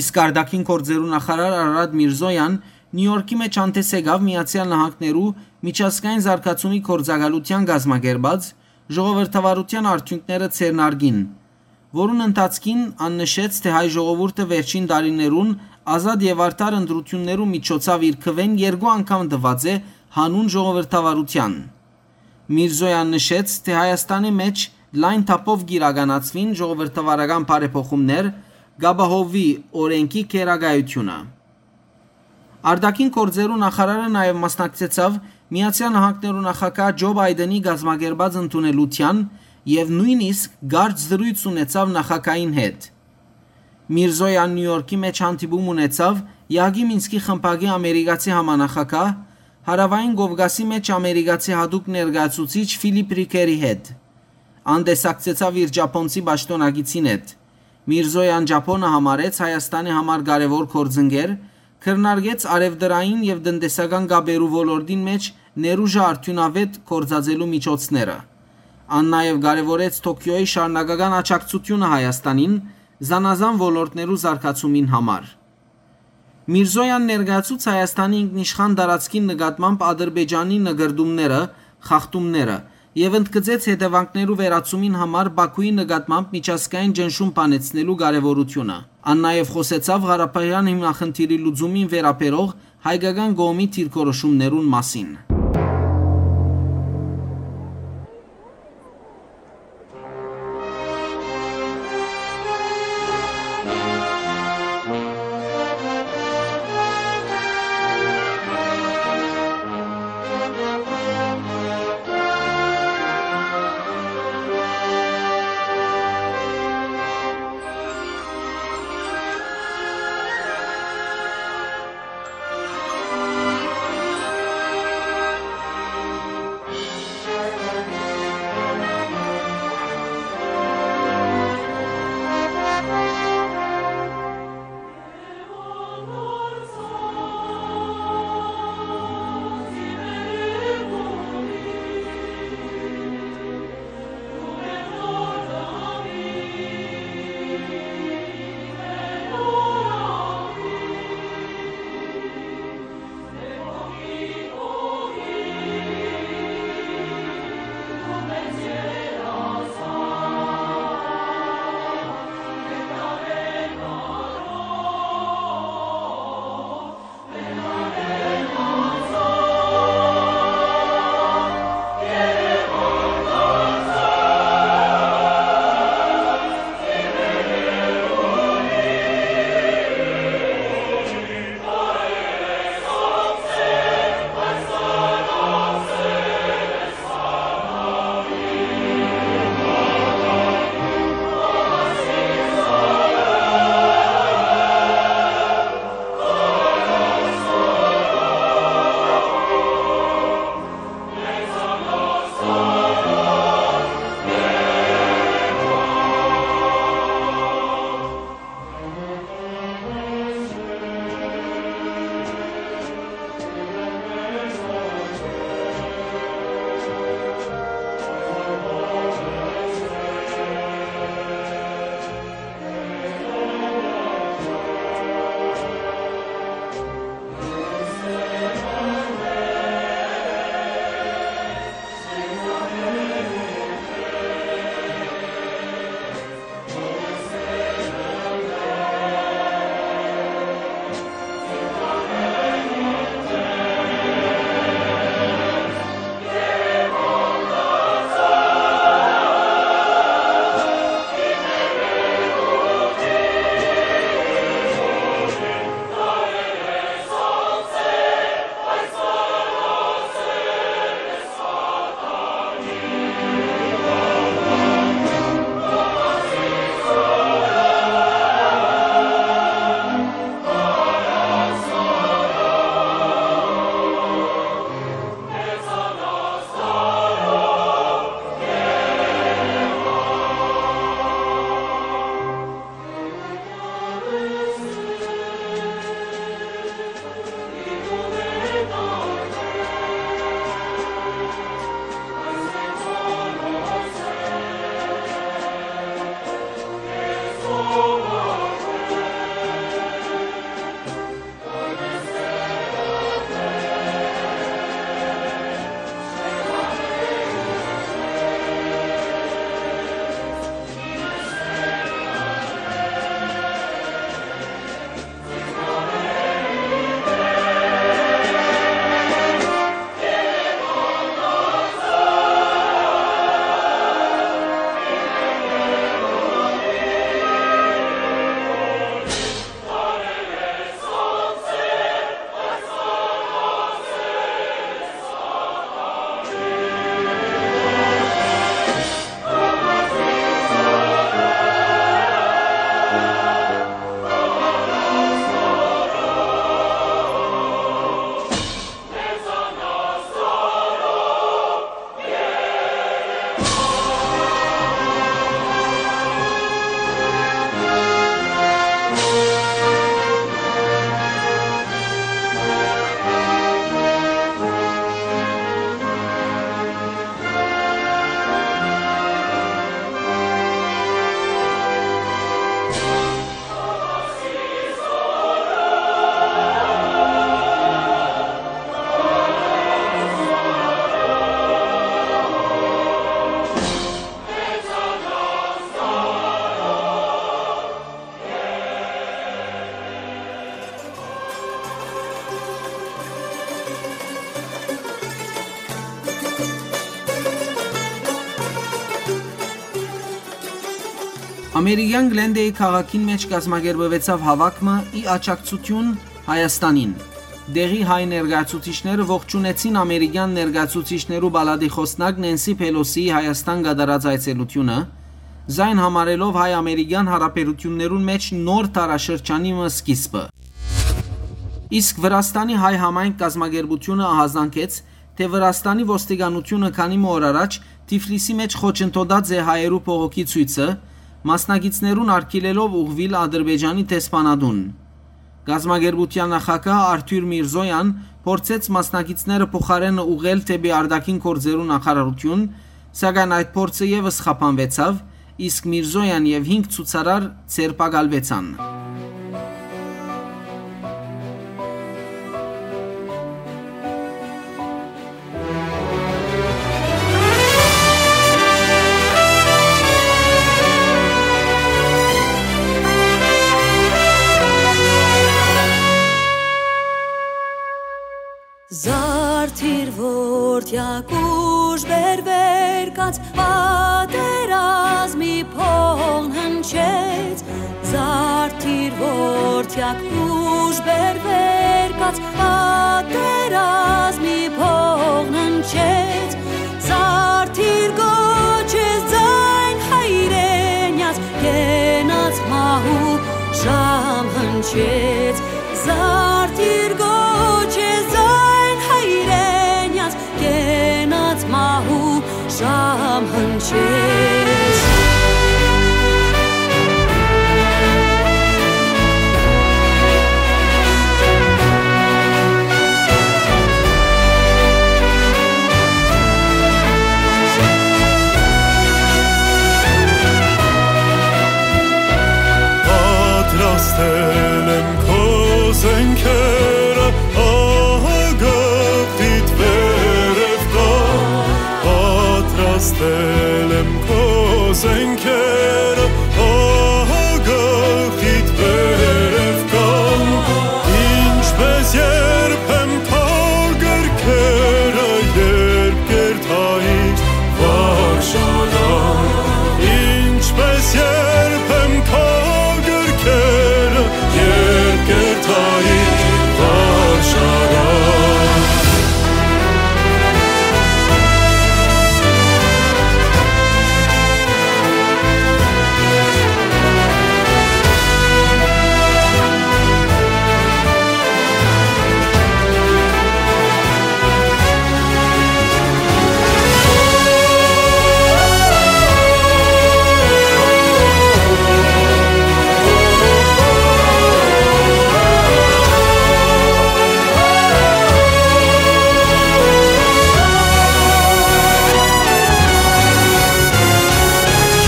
Իսկ արտաքին գործերու նախարար Արարատ Միրզոյան Նիու Յորքի մէջ հանդես եկաւ Միացեալ Նահանգներու միջազգային զարգացումի գործակալութեան կազմակերպած ժողովրդավարութեան արդիւնքները ձեռնարկին, որուն ընթացքին ան նշեց, թէ հայ ժողովուրդը վերջին տարիներուն ազատ եւ արդար ընտրութիւններու միջոցաւ իր քուէն երկու անգամ տուած է յանուն ժողովրդավարութեան։ Միրզոյան նշեց, թէ Հայաստանի մէջ լայն թափով կիրականացուին ժողովրդավարական բարեփոխումներ, կ'ապահովուի օրէնքի գերակայութիւնը։ Արտաքին գործերու նախարարը նաեւ մասնակցեցաւ Միացեալ Նահանգներու նախագահ Ջո Պայտենի կազմակերպած ընդունելութեան եւ նոյնիսկ կարճ զրոյց ունեցաւ նախագահին հետ։ Միրզոյան Նիու Յորքի մէջ հանդիպում ունեցաւ ԵԱՀԿ-ի Մինսկի խմբակի ամերիկացի համանախագահ, Հարաւային Կովկասի մէջ ամերիկացի յատուկ ներկայացուցիչ Ֆիլիփ Ռիքերի հետ։ Ան տեսակցեցաւ իր ճապոնցի պաշտօնակիցին հետ։ Միրզոյան Ճապոնը համարեց Հայաստանի համար կարեւոր գործընկեր, քննարկեց առեւտրային եւ տնտեսական կապերու ոլորտին մէջ ներուժը արդիւնաւէտ գործածելու միջոցները։ Ան նաեւ կարեւորեց Թոքիոյի շարունակական աջակցութիւնը Հայաստանին զանազան ոլորտներու զարգացումին համար։ Միրզոյան ներկայացուց Հայաստանի ինքնիշխան տարածքին նկատմամբ Ադրբեջանի նկրտումները, խախտումները եւ ընդգծեց հետեւանքներու վերացումին համար Բաքուի նկատմամբ միջազգային ճնշում բանեցնելու կարեւորութիւնը։ Ան նաեւ խօսեցաւ Ղարաբաղեան հիմնախնդիրի լուծումին վերաբերող հայկական կողմի դիրքորոշումներուն մասին։ Ամերիկյան Գլենդեի քաղաքին մէջ կազմակերպուեցաւ հաւաք մը ի աջակցութիւն Հայաստանին։ Դեղի հայ ներկայացուցիչները ողջունեցին ամերիկյան ներկայացուցիչներու պալատի խօսնակ Նենսի Փելոսիի Հայաստան կատարած այցելութիւնը, զայն համարելով հայ-ամերիկյան յարաբերութիւններուն մէջ նոր դարաշրջանի մը սկիզբը։ Իսկ Վրաստանի հայ համայնք կազմակերպութիւնը ահազանգեց, թէ Վրաստանի ոստիկանութիւնը քանի մը օր առաջ Թիֆլիսի մէջ խոչընդոտած է հայերու բողոքի ցոյցը, մասնակիցներուն արգիլելով ուղղուիլ Ադրբեջանի դեսպանատուն։ Կազմակերպութեան նախագահ Արթուր Միրզոյան փորձեց մասնակիցները փոխարէնը ուղղել դէպի արտաքին գործերու նախարարութիւն, սակայն այդ փորձը եւս խափանուեցաւ, իսկ Միրզոյան եւ հինգ ցուցարար ձերբակալուեցան։ Զարդիր որդեակ ուժ բերվեր կաց պատերազմի փողն հնչեց, Զարդիր որդեակ ուժ բերվեր կաց պատերազմի փողն հնչեց, Զարդիր գոչես ձայն հայրենյաց կենաց մահու ժամ հնչեց, Զարդիր գոչես ձայն հայրենյաց կենաց մահու ժամ հնչեց։ Պատրաստել եմ քո զենքերը, ահա գաղտնիդ վերև կան։ Պատրաստել եմ քո զենքերը, ահա գաղտնիդ վերև կան։ Ինչպես երբեմ քո գրքերը, երբ կերթայի վարժարան, ինչպես երբեմ քո գրքերը, երբ կերթայի վարժարան։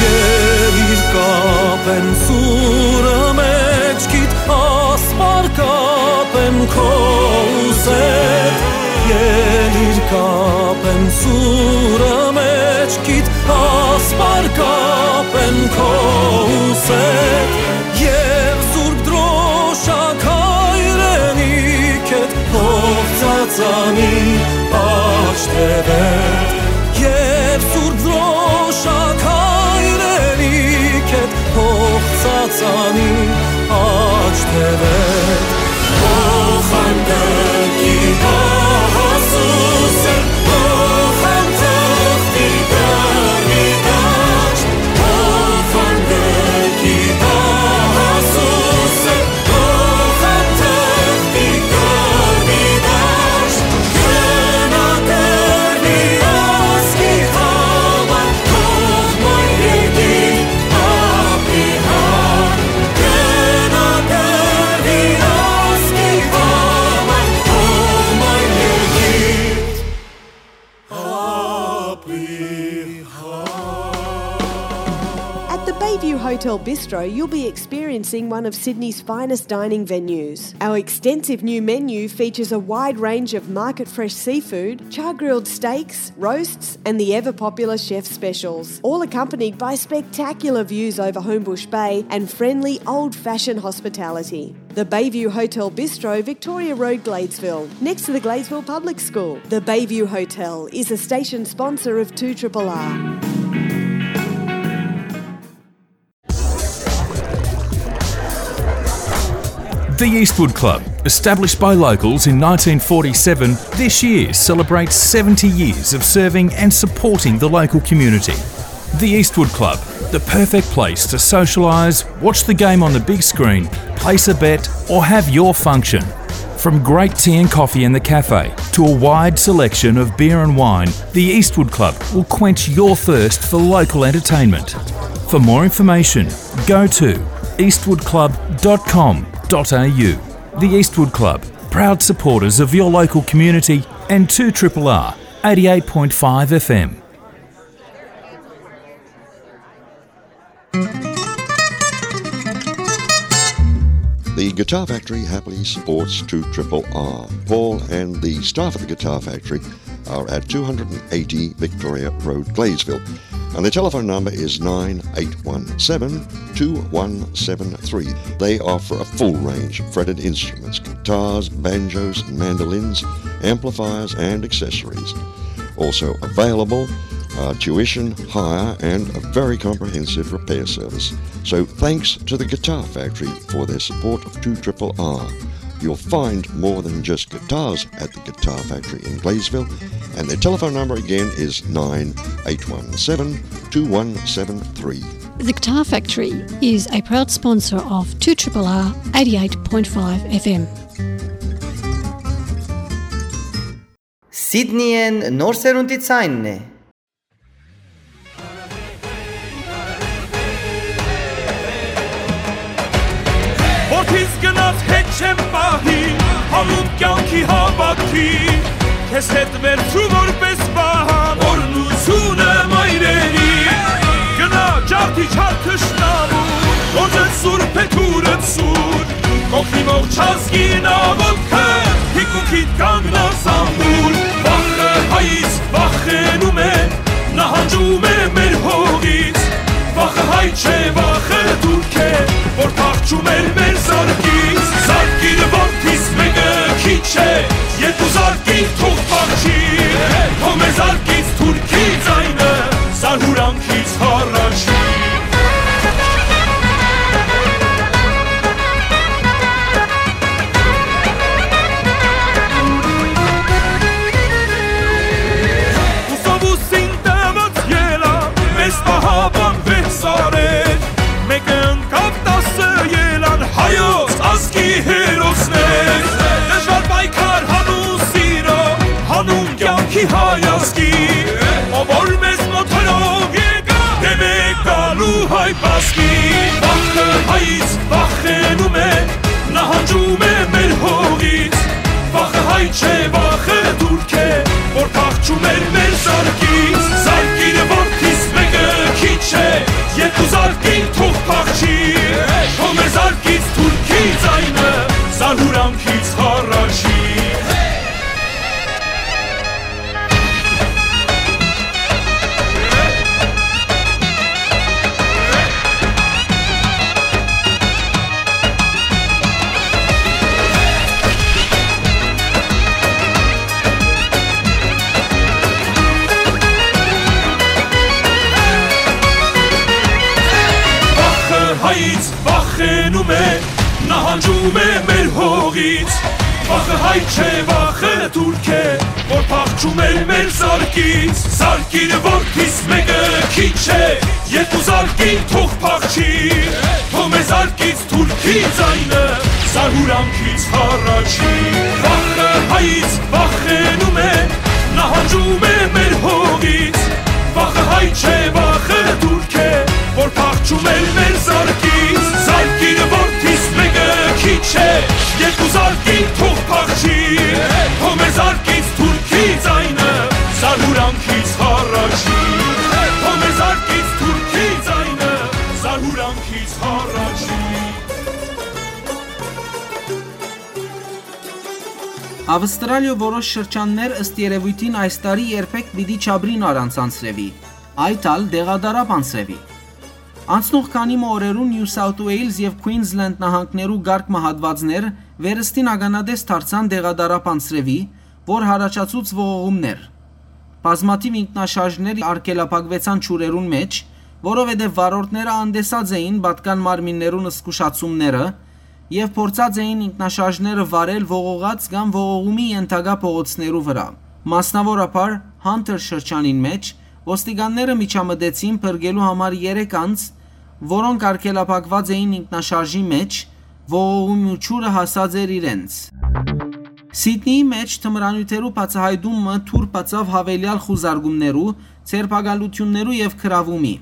Ելիր կապեմ սուրը մէջքիդ, ասպար կապեմ քո ուսեդ։ Ելիր կապեմ սուրը մէջքիդ, ասպար կապեմ քո ուսեդ։ Եւ Սուրբ Դրոշակ հայրենիքդ, փոխ ծածանի աջ թեւեդ, եւ Սուրբ Դրոշակ հայրենիքդ, փոխ ծածանի աջ թեւեդ։ Փոխանցի դահասուսը, փոխանցի դարի դաշտ, փոխանցի դահասուսը, At the Bayview Hotel Bistro, you'll be experiencing one of Sydney's finest dining venues. Our extensive new menu features a wide range of market fresh seafood, char grilled steaks, roasts, and the ever popular chef specials, all accompanied by spectacular views over Homebush Bay and friendly old fashioned hospitality. The Bayview Hotel Bistro, Victoria Road, Gladesville, next to the Gladesville Public School. The Bayview Hotel is a station sponsor of two R R R. The Eastwood Club, established by locals in nineteen forty-seven, this year celebrates seventy years of serving and supporting the local community. The Eastwood Club, the perfect place to socialise, watch the game on the big screen, place a bet, or have your function. From great tea and coffee in the cafe to a wide selection of beer and wine, the Eastwood Club will quench your thirst for local entertainment. For more information, go to eastwood club dot com dot a u. The Eastwood Club, proud supporters of your local community and two triple R eighty-eight point five F M. The Guitar Factory happily supports two triple R. Paul and the staff at the Guitar Factory are at two hundred and eighty Victoria Road, Gleysville. And the telephone number is nine eight one seven, two one seven three. They offer a full range of fretted instruments, guitars, banjos, mandolins, amplifiers, and accessories. Also available, uh, tuition, hire, and a very comprehensive repair service. So thanks to the Guitar Factory for their support of two triple R. You'll find more than just guitars at the Guitar Factory in Gleysville, and their telephone number again is nine eight one seven, two one seven three. The Guitar Factory is a proud sponsor of two triple R eighty-eight point five F M. Սիդնիեն նոր սերունդի ցայնն է։ Որդիս գնաց հետ չեմ պահի, հանուն կյանքի հավաքի, քեզ հետ վերցու որպես պահան, օրհնությունը մայրերի, գնա ջարդի չար թշնամու, գործը սուրբ է, թուրը սուր, կողքի ողջ ազգին աղոթքը, թիկունքիդ կանգնած ամուր, վախը հայից վախենում է, նահանջում է մեր հողից, վախը հայ չէ, վախը թուրք է, որ փախչում էր մեր զարկից, զարկին որդիս մեկը քիչ է, երկու զարկին թող փախչի, թող մեր զարկից թուրքի ձայնը, զարհուրանքից հառաչի։ Ուսովուսին տված ելա, մեզ պահապան վեց արեր, մեկը ընկավ տասը ելան, հայոց ազգի հերոսներ, դժվար պայքար հանուն սիրո, հանուն կյանքի հայ ազգի, ով որ մեզ մոտ հրով եկա, դեմ է գալու հայ բազգի, վախը հայից վախենում է, նահանջում է մեր հողից, վախը հայ չէ, վախը թուրք է, որ փախչում էր մեր զարկից, զարկին որդիս մեկը քիչ է, երկու զարկին թող փախչի, թող մեր զարկից թուրքի ձայնը, զարհուրանքից հառաչի։ Վախը հայից վախենում է, նահանջում է մեր հողից։ Վախը հայ չէ, վախը թուրք է, որ փախչում էր մեր զարկից։ Զարկին որդիս մեկը քիչ է, երկու զարկին թող փախչի, թող մեր զարկից թուրքի ձայնը զարհուրանքից հառաչի։ Վախը հայից վախենում է, նահանջում է մեր հողից։ Վախը հայ չէ, վախը թուրք է, որ փախչում էր մեր զարկից։ Զարկին որդիս մեկը քիչ է, երկու զարկին թող փախչի, թող մեր զարկից թուրքի ձայնը զարհուրանքից հառաչի, թող մեր զարկից թուրքի ձայնը զարհուրանքից հառաչի։ Ավստրալիոյ որոշ շրջաններ, ըստ երեւոյթին, այս տարի երբեք պիտի չապրին առանց անձրեւի, այդ ալ տեղատարափ անձրեւի։ Անցնող քանի մը օրերուն Նիու Սաութ Ուէյլզ եւ Քուինզլենդ նահանգներու կարգ մը հատուածներ վերստին ականատես դարձան տեղատարափ անձրեւի, որ յառաջացուց ողողումներ։ Բազմաթիւ ինքնաշարժներ արգելափակուեցան ջուրերուն մէջ, որովհետեւ վարորդները անտեսած էին պատկան մարմիններուն զգուշացումները, եւ փորձած էին ինքնաշարժները վարել ողողած կամ ողողումի ենթակայ փողոցներու վրայ։ Մասնաւորաբար Hunter շրջանին մէջ ոստիկանները միջամտեցին փրկելու համար երեք անձ, որոնք արգելափակուած էին ինքնաշարժի մէջ, ողողումի ջուրը հասած էր իրենց։ Սիդնիի մէջ թմրանիւթերու բացայայտումը դուռ բացաւ յաւելեալ խուզարկումներու, ձերբակալութիւններու եւ գրաւումի։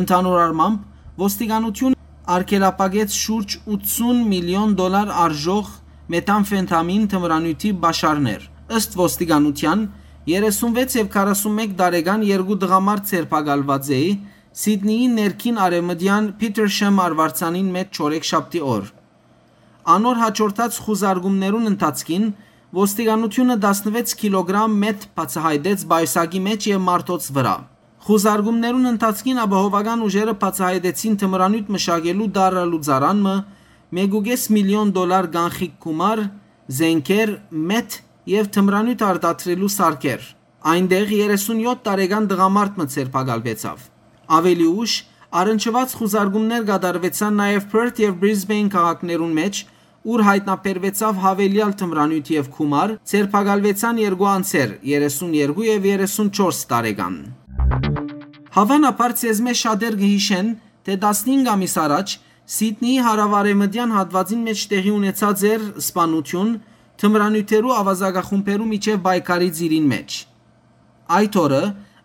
Ընդհանուր առմամբ, ոստիկանութիւնը արգելափակեց շուրջ ութսուն միլիոն դոլար արժող մետամֆետամին թմրանիւթի պաշարներ։ Ըստ ոստիկանութեան, երեսունվեց եւ քառասունմէկ տարեկան երկու տղամարդ ձերբակալուած էի Սիդնիի ներքին արեւմտեան Petersham արուարձանին մէջ չորեքշաբթի օր։ Անոր յաջորդած խուզարկումներուն ընթացքին ոստիկանութիւնը տասնվեց կիլոգրամ մեթ բացայայտեց պայուսակի մէջ եւ մարդոց վրայ։ Խուզարկումներուն ընթացքին ապահովական ուժերը բացայայտեցին թմրանիւթ մշակելու տարրալուծարան մը, մէկ ու կէս միլիոն դոլար կանխիկ գումար, զէնքեր, մեթ եւ թմրանիւթ արտադրելու սարքեր։ Այնտեղ երեսունյոթ տարեկան տղամարդ մը ձերբակալուեցաւ։ Աւելի ուշ առնչուած խուզարկումներ կատարուեցան նաեւ Perth եւ Brisbane քաղաքներուն մէջ, ուր յայտնաբերուեցաւ յաւելեալ թմրանիւթ եւ գումար, ձերբակալուեցան երկու անձեր՝ երեսուն երկու եւ երեսուն չորս տարեկան։ Հաւանաբար ձեզմէ շատեր կը յիշեն, թէ տասնհինգ ամիս առաջ Սիդնիի հարաւարեւմտեան հատուածին մէջ տեղի ունեցած էր սպանութիւն թմրանիւթերու աւազակախումբերու միջեւ պայքարի ծիրին մէջ։ Այդ օրը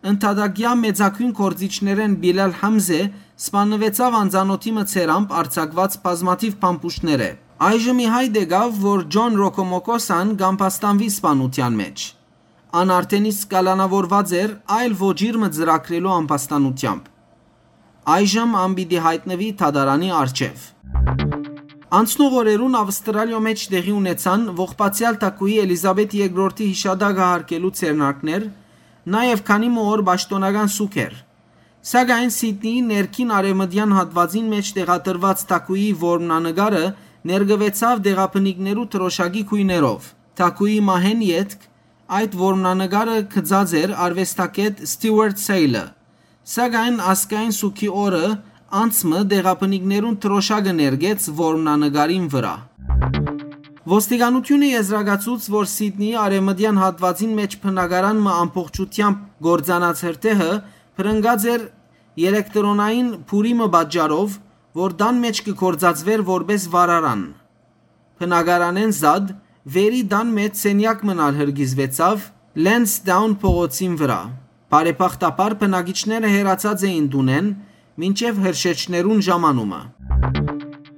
ընդհատակեայ մեծագոյն գործիչներէն Պիլալ Համզէ սպաննուեցաւ անծանօթի մը ձեռամբ արձակուած բազմաթիւ փամփուշտներէ։ Այժմ ի հայտ եկաւ, որ Ջոն Ռոկոմոկոսան կ'ամբաստանուի սպանութեան մէջ։ Ան արդէն իսկ կալանաւորուած էր այլ ոճիր մը ծրագրելու ամբաստանութեամբ։ Այժմ ան պիտի յայտնուի դատարանի առջեւ։ Անցնող օրերուն Ավստրալիոյ մէջ տեղի ունեցան ողբացեալ թագուհի Էլիզաբեթ երկրորդի յիշատակը յարգելու ձեռնարկներ, նաեւ քանի մը օր պաշտօնական սուգ էր։ Սակայն Սիդնիի ներքին արեւմտեան հատուածին մէջ տեղադրուած թագուհի որմնանկարը ներկուեցաւ տեղաբնիկներու դրօշակի գոյներով։ Թագուհի մահէն ետք այդ որմնանկարը գծած էր արուեստագէտ Ստիուարթ Սէյլը, սակայն ազգային սուգի օրը անձ մը տեղաբնիկներուն դրօշակը ներկեց որմնանկարին վրայ։ Ոստիկանութիւնը եզրակացուց, որ Սիդնիի արեւմտեան հատուածին մէջ բնակարան մը ամբողջութեամբ կործանած հրդեհը բռնկած էր էլեկտրոնային փուրի մը պատճառով, որ տան մէջ կը գործածուէր որպէս վառարան։ Բնակարանէն զատ վերի տան մէջ սենեակ մըն ալ հրկիզուեցաւ Լենսդաուն փողոցին վրայ։ Բարեբախտաբար բնակիչները հեռացած էին տունէն մինչեւ հրշեջներուն ժամանումը։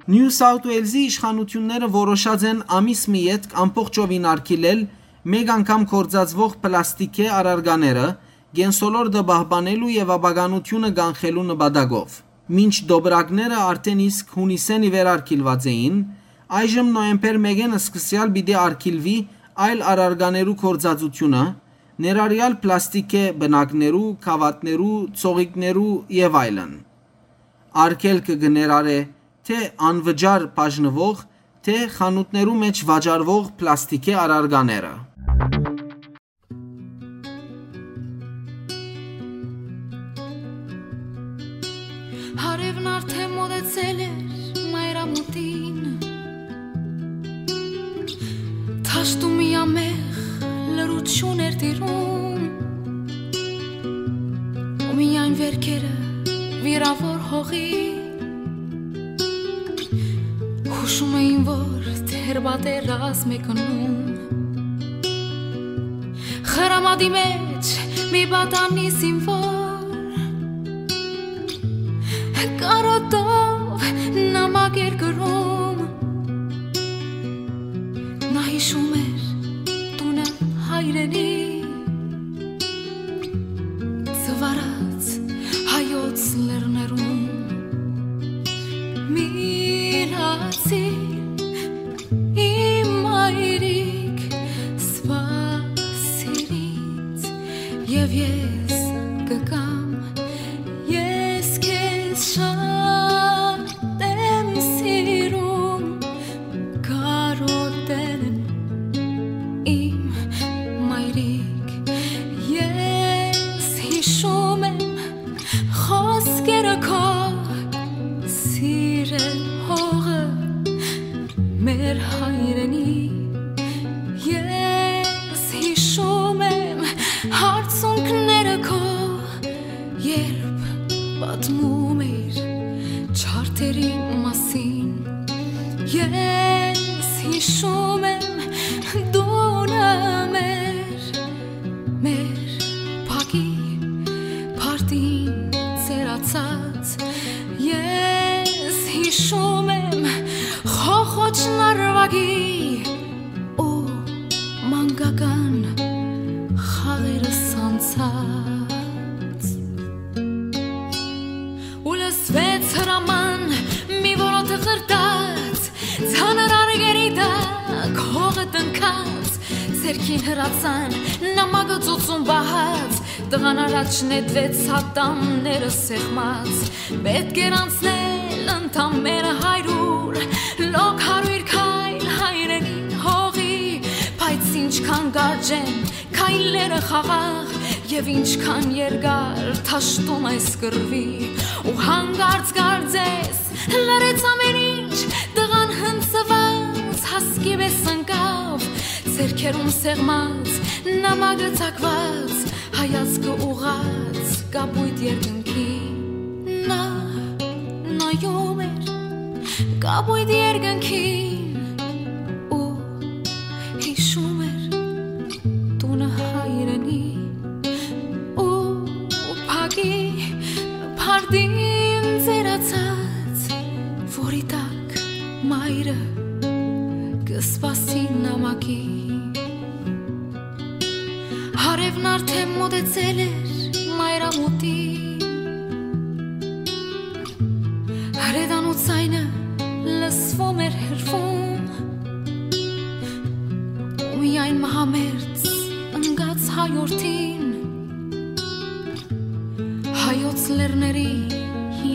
Նիու Սաութ Ուելզի իշխանութիւնները որոշած են ամիս մը ետք ամբողջովին արգիլել մէկ անգամ գործածուող պլաստիկէ առարկաները, կենսոլորտը պահպանելու եւ ապականութիւնը կանխելու նպատակով։ Մինչ տոպրակները արդէն իսկ յունիսէն ի վեր արգիլուած էին, այժմ նոյեմբեր մէկէն սկսեալ պիտի արգիլուի այլ առարկաներու գործածութիւնը, ներառեալ պլաստիկէ պնակներու, գաւաթներու, ծողիկներու եւ այլն։ Արգելքը կը ներառէ թէ անվճար բաժնուող, թէ խանութներու մէջ վաճառուող պլաստիկէ առարկաները։ Հարեւն արդէն մօտեցել էր մայրամուտին, դաշտում միամեղ լռութիւն էր տիրում, ու միայն վէրքերը վիրաւոր հողի յուշում էին, որ դեռ պատերազմ է գնում։ Խրամատի մէջ մի պատանի զինվոր կարոտով նամակ էր գրում։ Նա յիշում էր տունը, հայրենի ծվարած հայոց լեռներուն։ Միլացի իմ մայրիկ, սպասիր ինձ, եւ ես կգամ, ես քեզ շատ եմ սիրում, կարոտել եմ իմ մայրիկ, ես յիշում եմ խոսքերը քո, սիրել հողը, Ես հիշում եմ հարցունքները քո, երբ պատմում էր չարդերի մասին։ Ես հիշում եմ դունը մեր, մեր փակի փարդին ծերացած։ Ես հիշում եմ խոխոճ նարվագի ու մանկական խաղերս անցած։ Ու լսվեց հրաման մի որոթ խրտած, ծանր արգերի տակ հողը տնքած, ձեռքին հրացան նամակը ծոցուն պահած, տղան առաջ նետվեց ատամները սեղմած, պետք էր անցնել ընդամենը հարյուր, լոկ հարյուր քայլ հայրենի հողի, բայց ինչքան կարճ են քայլերը խաղաղ, եւ ինչքան երկար թաշտում այս կռվի, ու հանկարծ կարծես լռեց ամեն ինչ, տղան հնձված հասկի պէս ընկավ, ձեռքերուն սեղմած, նամակը ծակված, հայացքը ուղղած կապոյտ երկնքին։ Նա նայում էր կապոյտ երկնքին ու հիշում էր տունը հայրենի ու փակի փարդին ծերացած, որի տակ մայրը կը սպասի նամակի։ Հարեւն արդեն մօտեցել էր մայրամուտին։ Հրետանու ձայնը լսվում էր հեռվում, ու միայն մահամերձ ընկած հայորդին հայոց լեռների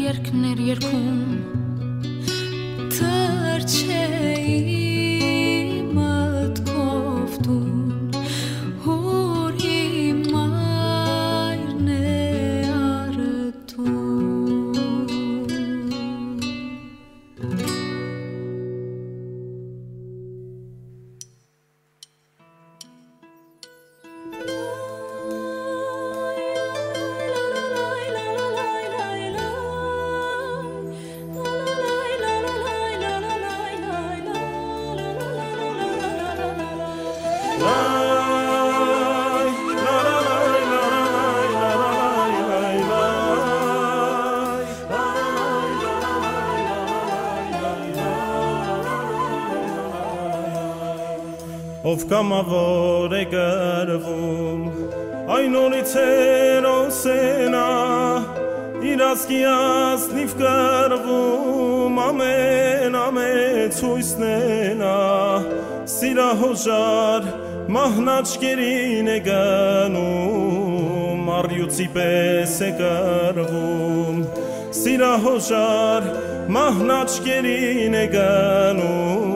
երկներ երկում։ Թռչէի մտքով տուն, ուր իմ մայրն է առ Ով կամաւոր է կռվում, այն օրից հերոս է նա, իր ազգի ազնիվ կռվում, ամեն ամեց յոյսն է նա, սիրահոժար մահն աչքերին է գնում, առիւծի պէս է կռվում։ Սիրահոժար մահն աչքերին է գնում,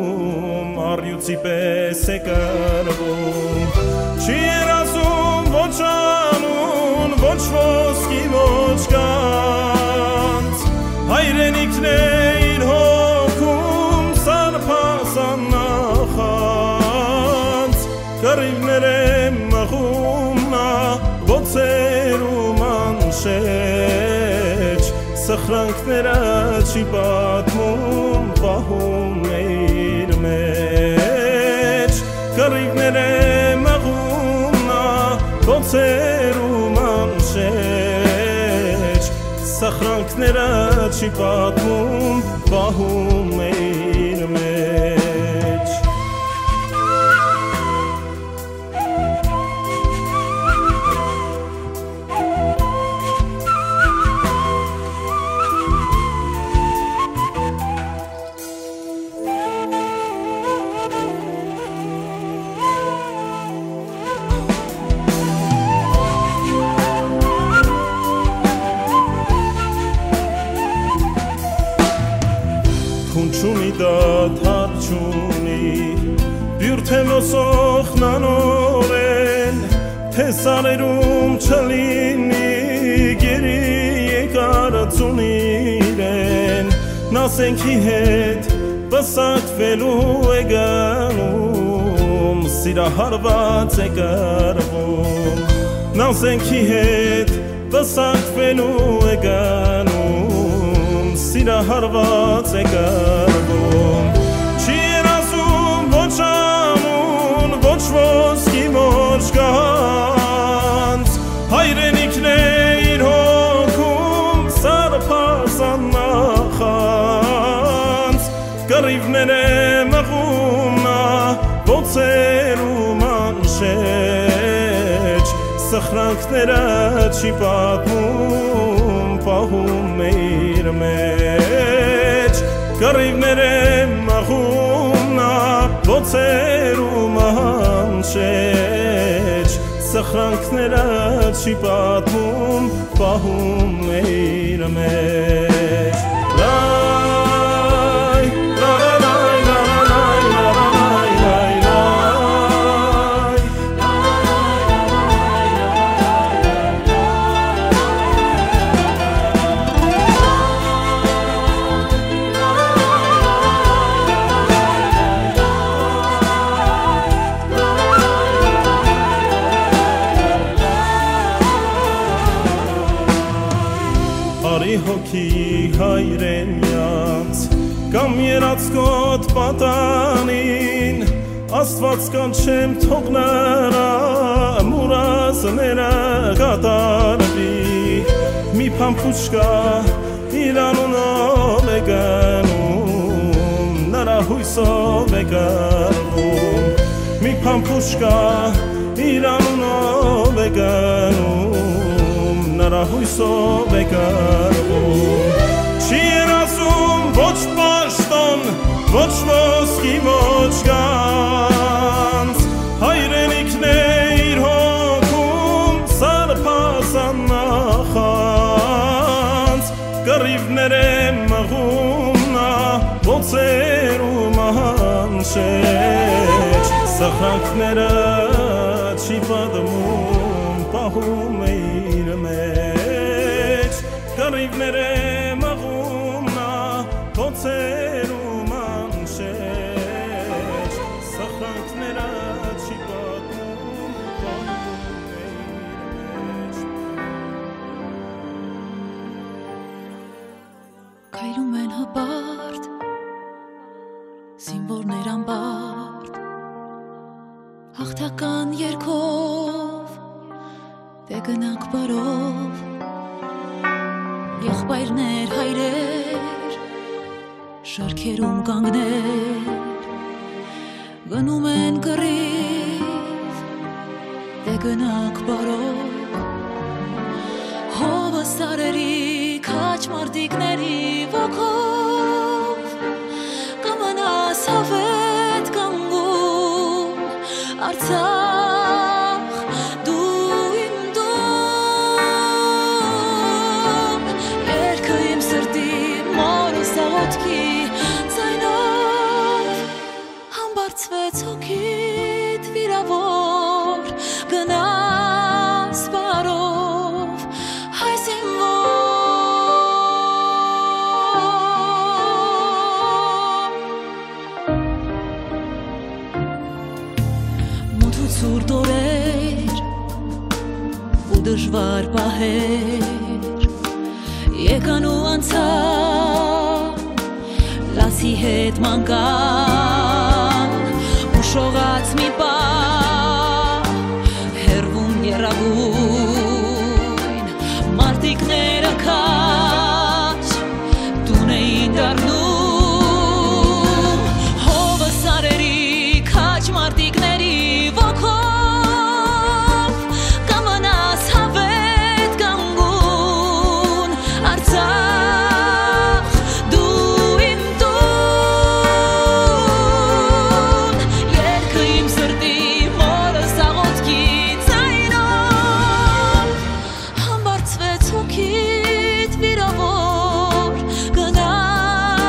առիւծի պէս է կռվում։ Չի երազում ոչ անուն, ոչ ոսկի, ոչ գանձ, հայրենիքն է իր հոգում սարբազան նախանձ։ Կռիւներէ մղում նա բոցեր ու մանշէջ, սխրանքները չի պատմում, պահում է իր մեջ։ Կռիւներէ մղում նա բոցեր ու մանշէջ, սխրանքները չի պատմում, պահում է իր մեջ։ Փուն չունի, դադար չունի, բիւր թէ ոսոխնանօրէն, թէ սարերուն չլինի գերի եկարծուն իրեն, նա սենքի հետ պսակուելու է գնում, Սիրահարուած է կռվում, նազենքի հետ պսակուելու է գնում, սիրահարուած է կռվում։ Չի երազում ոչ անուն, ոչ ոսկի, ոչ գանձ, հայրենիքն է իր հոգում սարսափազան նախանձ։ Կռիւներէ մղում մը բոցերու մանշէջ, սխրանքները չի պատմում, պահում է իր մեջ։ Կռիւներէ մղում մը բոցերու մանշէջ, սխրանքները չի պատմում, պահում է իր մեջ։ Լայ, լա, լա, լայ, լա, լա, լայ, լա, լայ, լայ, լայ, լայ։ Արի հոգի հայրենեանց կամ երածկոտ պատանին, Աստուած կանչեմ, թող նրա մուրազները կատարուի։ Մի փամփուշկա իր անունով է գնում, նրա յոյսով է կռվում։ Մի փամփուշկա իր անունով է գնում, նրա յոյսով է կռվում։ Չի երազում ոչ պաշտոն, ոչ ոսկի, ոչ գանձ, հայրենիքն է իր հոգում սարսափազան նախանձ։ Կռիւներէ մղում մը բոցերու մանշէջ, սխրանքները չի պատմում, պահում է իր մեջ։ Կռիւներէ մղում մը բոցերու մանշէջ, սխրանքները չի պատմում, պահում է իր մեջ։ Քայլում են հպարտ, զինուորներ անպարտ, հաղթական երգով, դէ գնանք բարով, եղբայրներ, հայրեր, շարքերում կանգներ, գնում են կռիվ, դէ գնանք բարով, հովը սարերի քաջ մարտիկների ոգով, կը մնաս յաւէտ կանգուն, Արցախ, դու իմ տուն, երկը իմ սրտի, մորս աղօթքի ձայնով, համբարձվեց հոգիդ վիրաւոր, գնաս բարով, հայ զինուոր։ Մութ ու ցուրտ օրեր ու դժուար պահեր եկան ու անցան, լացի հետ մանկան, ուշողաց մի պահ, հեռվում եռագույն մարտիկները քաջ տուն էին դառնում, հովը սարերի քաջ մարտիկների ոգով, կը մնաս յաւէտ կանգուն, Արցախ, դու իմ տուն, երկը իմ սրտի, մորս աղօթքի ձայնով, համբարձվեց հոգիդ վիրաւոր, գնաս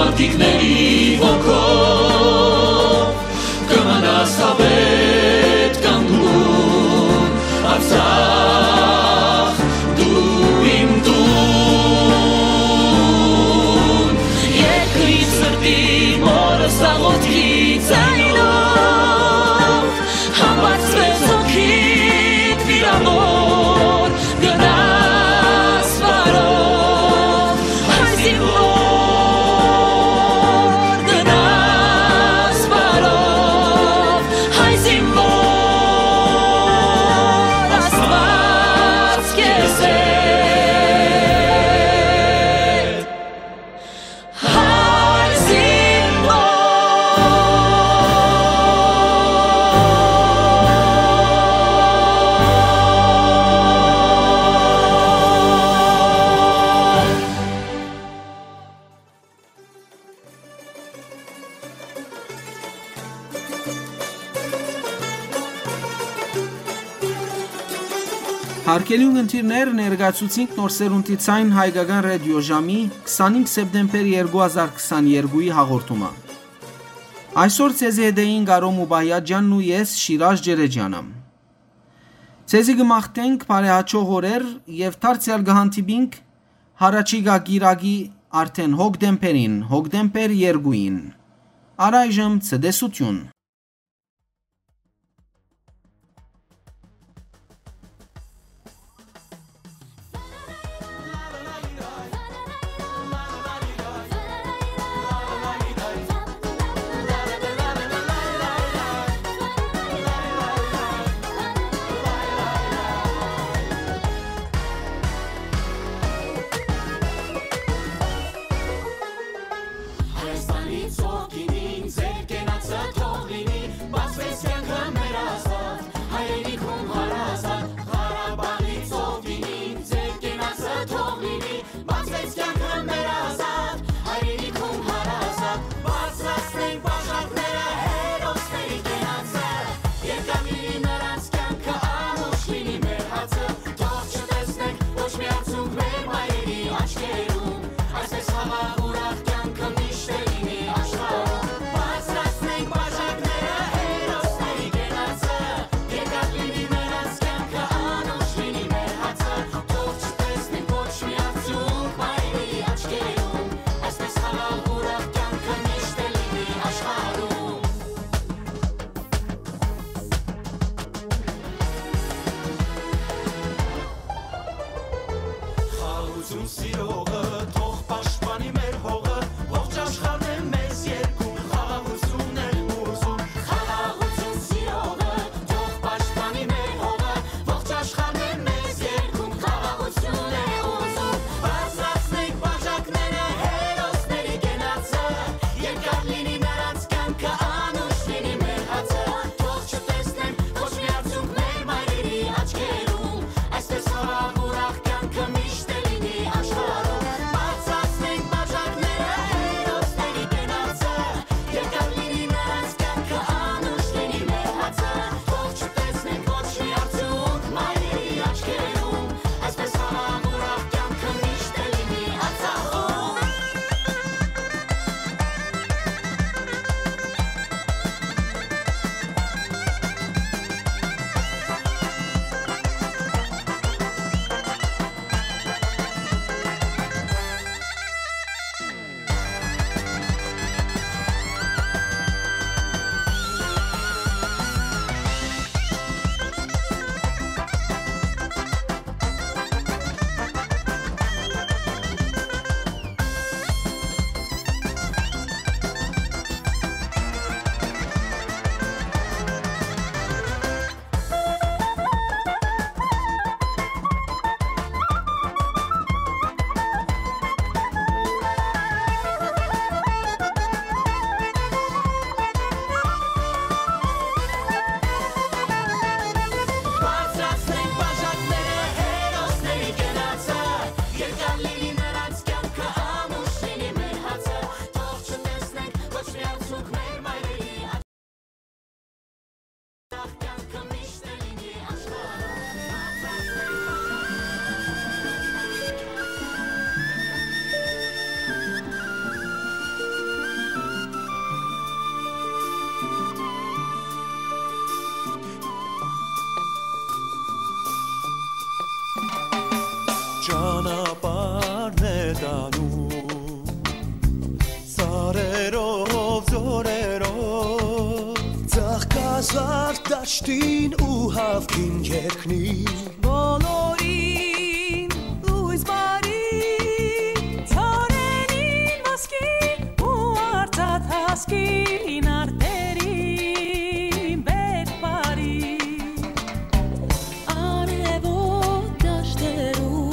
Ատիկների ոգով կը մնաս հավետ կանգուն, Արցախ, դու իմ տուն։ Երկրի սրտի մորս աղոթքի ձայնով, համբարձվեց հոգիդ վիրավոր, գնաս բարով, հայ զինվոր, գնաս բարով, հայ զինվոր, Աստուած քեզ հետ։ Հայ զինվոր։ Հարգելի ունգընտիրներ, ներկայացուցինք Նոր Սերունդի Ձայն հայկական ռադիոժամի քսանինգ սեպտեմբեր երկու հազար քսաներկուի հաղորդումը։ Այսօր ձեզի հետ էին Կարո Մուբայաջանն ու ես, Շիրաժ Ջերեջյանը։ Ձեզի կը մաղթենք բարեհաճող օրեր եւ դարձեալ կը հանդիպինք յառաջիկայ կիրակի արդէն հոկտեմբերին, հոկտեմբեր երկուին։ Առայժմ ցտեսութիւն։ Հայաստանի ծովքին ձեր կենացը թող լինի, բացվեց կյանքը մեր ազատ հայրենիքում հարազատ Ղարաբաղի ծովքին ձեր կենացը թող լինի, բացվեց կյանքը մեր ազատ հայրենիքում հարազատ, բարձրացնենք բաժակները հերոսների կենացը, երկար լինի նրանց կյանքը, անուշ լինի մեր հացը, թող չտեսնենք ոչ մի արցունք մեր մայրերի աչքերում, այսպես խաղաղ ուրախ կյանքը միշտ է լինի աշխարհում, բարձրացնենք բաժակները հերոսների կենացը, երկար լինի նրանց կյանքը, անուշ լինի մեր հացը, թող չտեսնենք ոչ մի արցունք մայրերի աչքերում, այսպես խաղաղ ուրախ կյանքը միշտ է լինի աշխարհում։ Խաղաղություն սիրողը թող պաշտպանի մեր հողը, ողջ աշխարհն է մեզ երկում, խաղաղություն է ուզում։ Խաղաղություն սիրողը թող պաշտպանի մեր հողը, ողջ աշխարհն է մեզ երկում, խաղաղություն է ուզում։ Բարձրացնենք բաժակները հերոսների կենացը, երկար լինի նրանց կյանքը, անուշ լինի մեր հացը, թող չտեսնեն ոչ մի արցունք մեր մայրերի աչքերում, այսպես խաղաղ ուրախ կյանքը միշտ է լինի աշխարհում, Սարդաշտին ու հաւքին երկնի, բոլորին լոյս բարի, ծառերին ոսկի ու արծաթ հասկին արտերին բերք բարի։ Արեւոտ դաշտերու,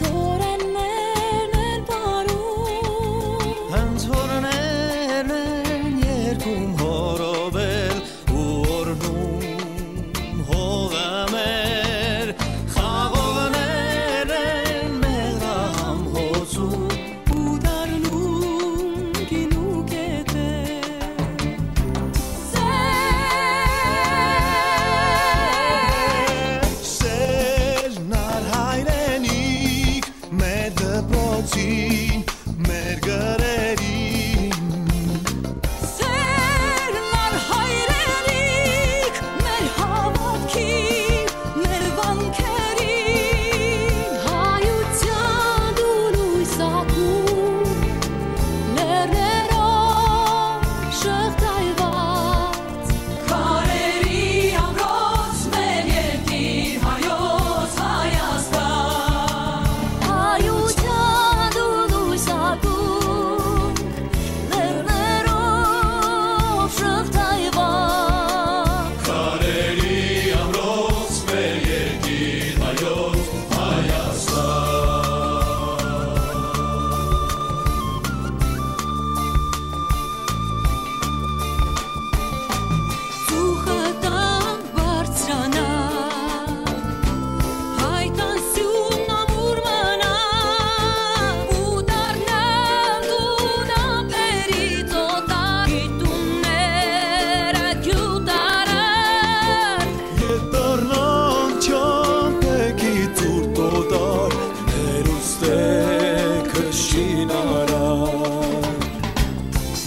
ծորեններն են պարում, հենց հորներն են երկում հորովել ու օրհնում հողը մեր, խաղողներ են մեղրահամ հոծում ու դառնում գինու կետեր։ Սերն ալ հայրենիք, մեր դպրոցին, մեր գրերին։ Սերն ալ հայրենիք, մեր հաւատքին, մեր վանքերին։ Հայութեան դու լոյս ակում, լեռներով շղթայուած, քարերի ամրոց մեր երկիր հայոց Հայաստան։ Հայութեան դու լոյս ակում, լեռներով շղթայուած, քարերի ամրոց մեր երկիր հայոց Հայաստան։ Ծուխը տան բարձրանայ, հայ տան սիւնն ամուր մնայ, ու դառնալ դուն ափերիցոտ, գիտունները գիւտարար։ Ետ դառնան չամբեքի ցուրտ օտար, հերուստե քշին արար։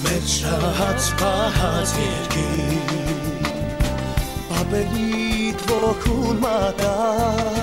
Մեր շահած պահած երկիր, պապերիդ ոգուն մատար,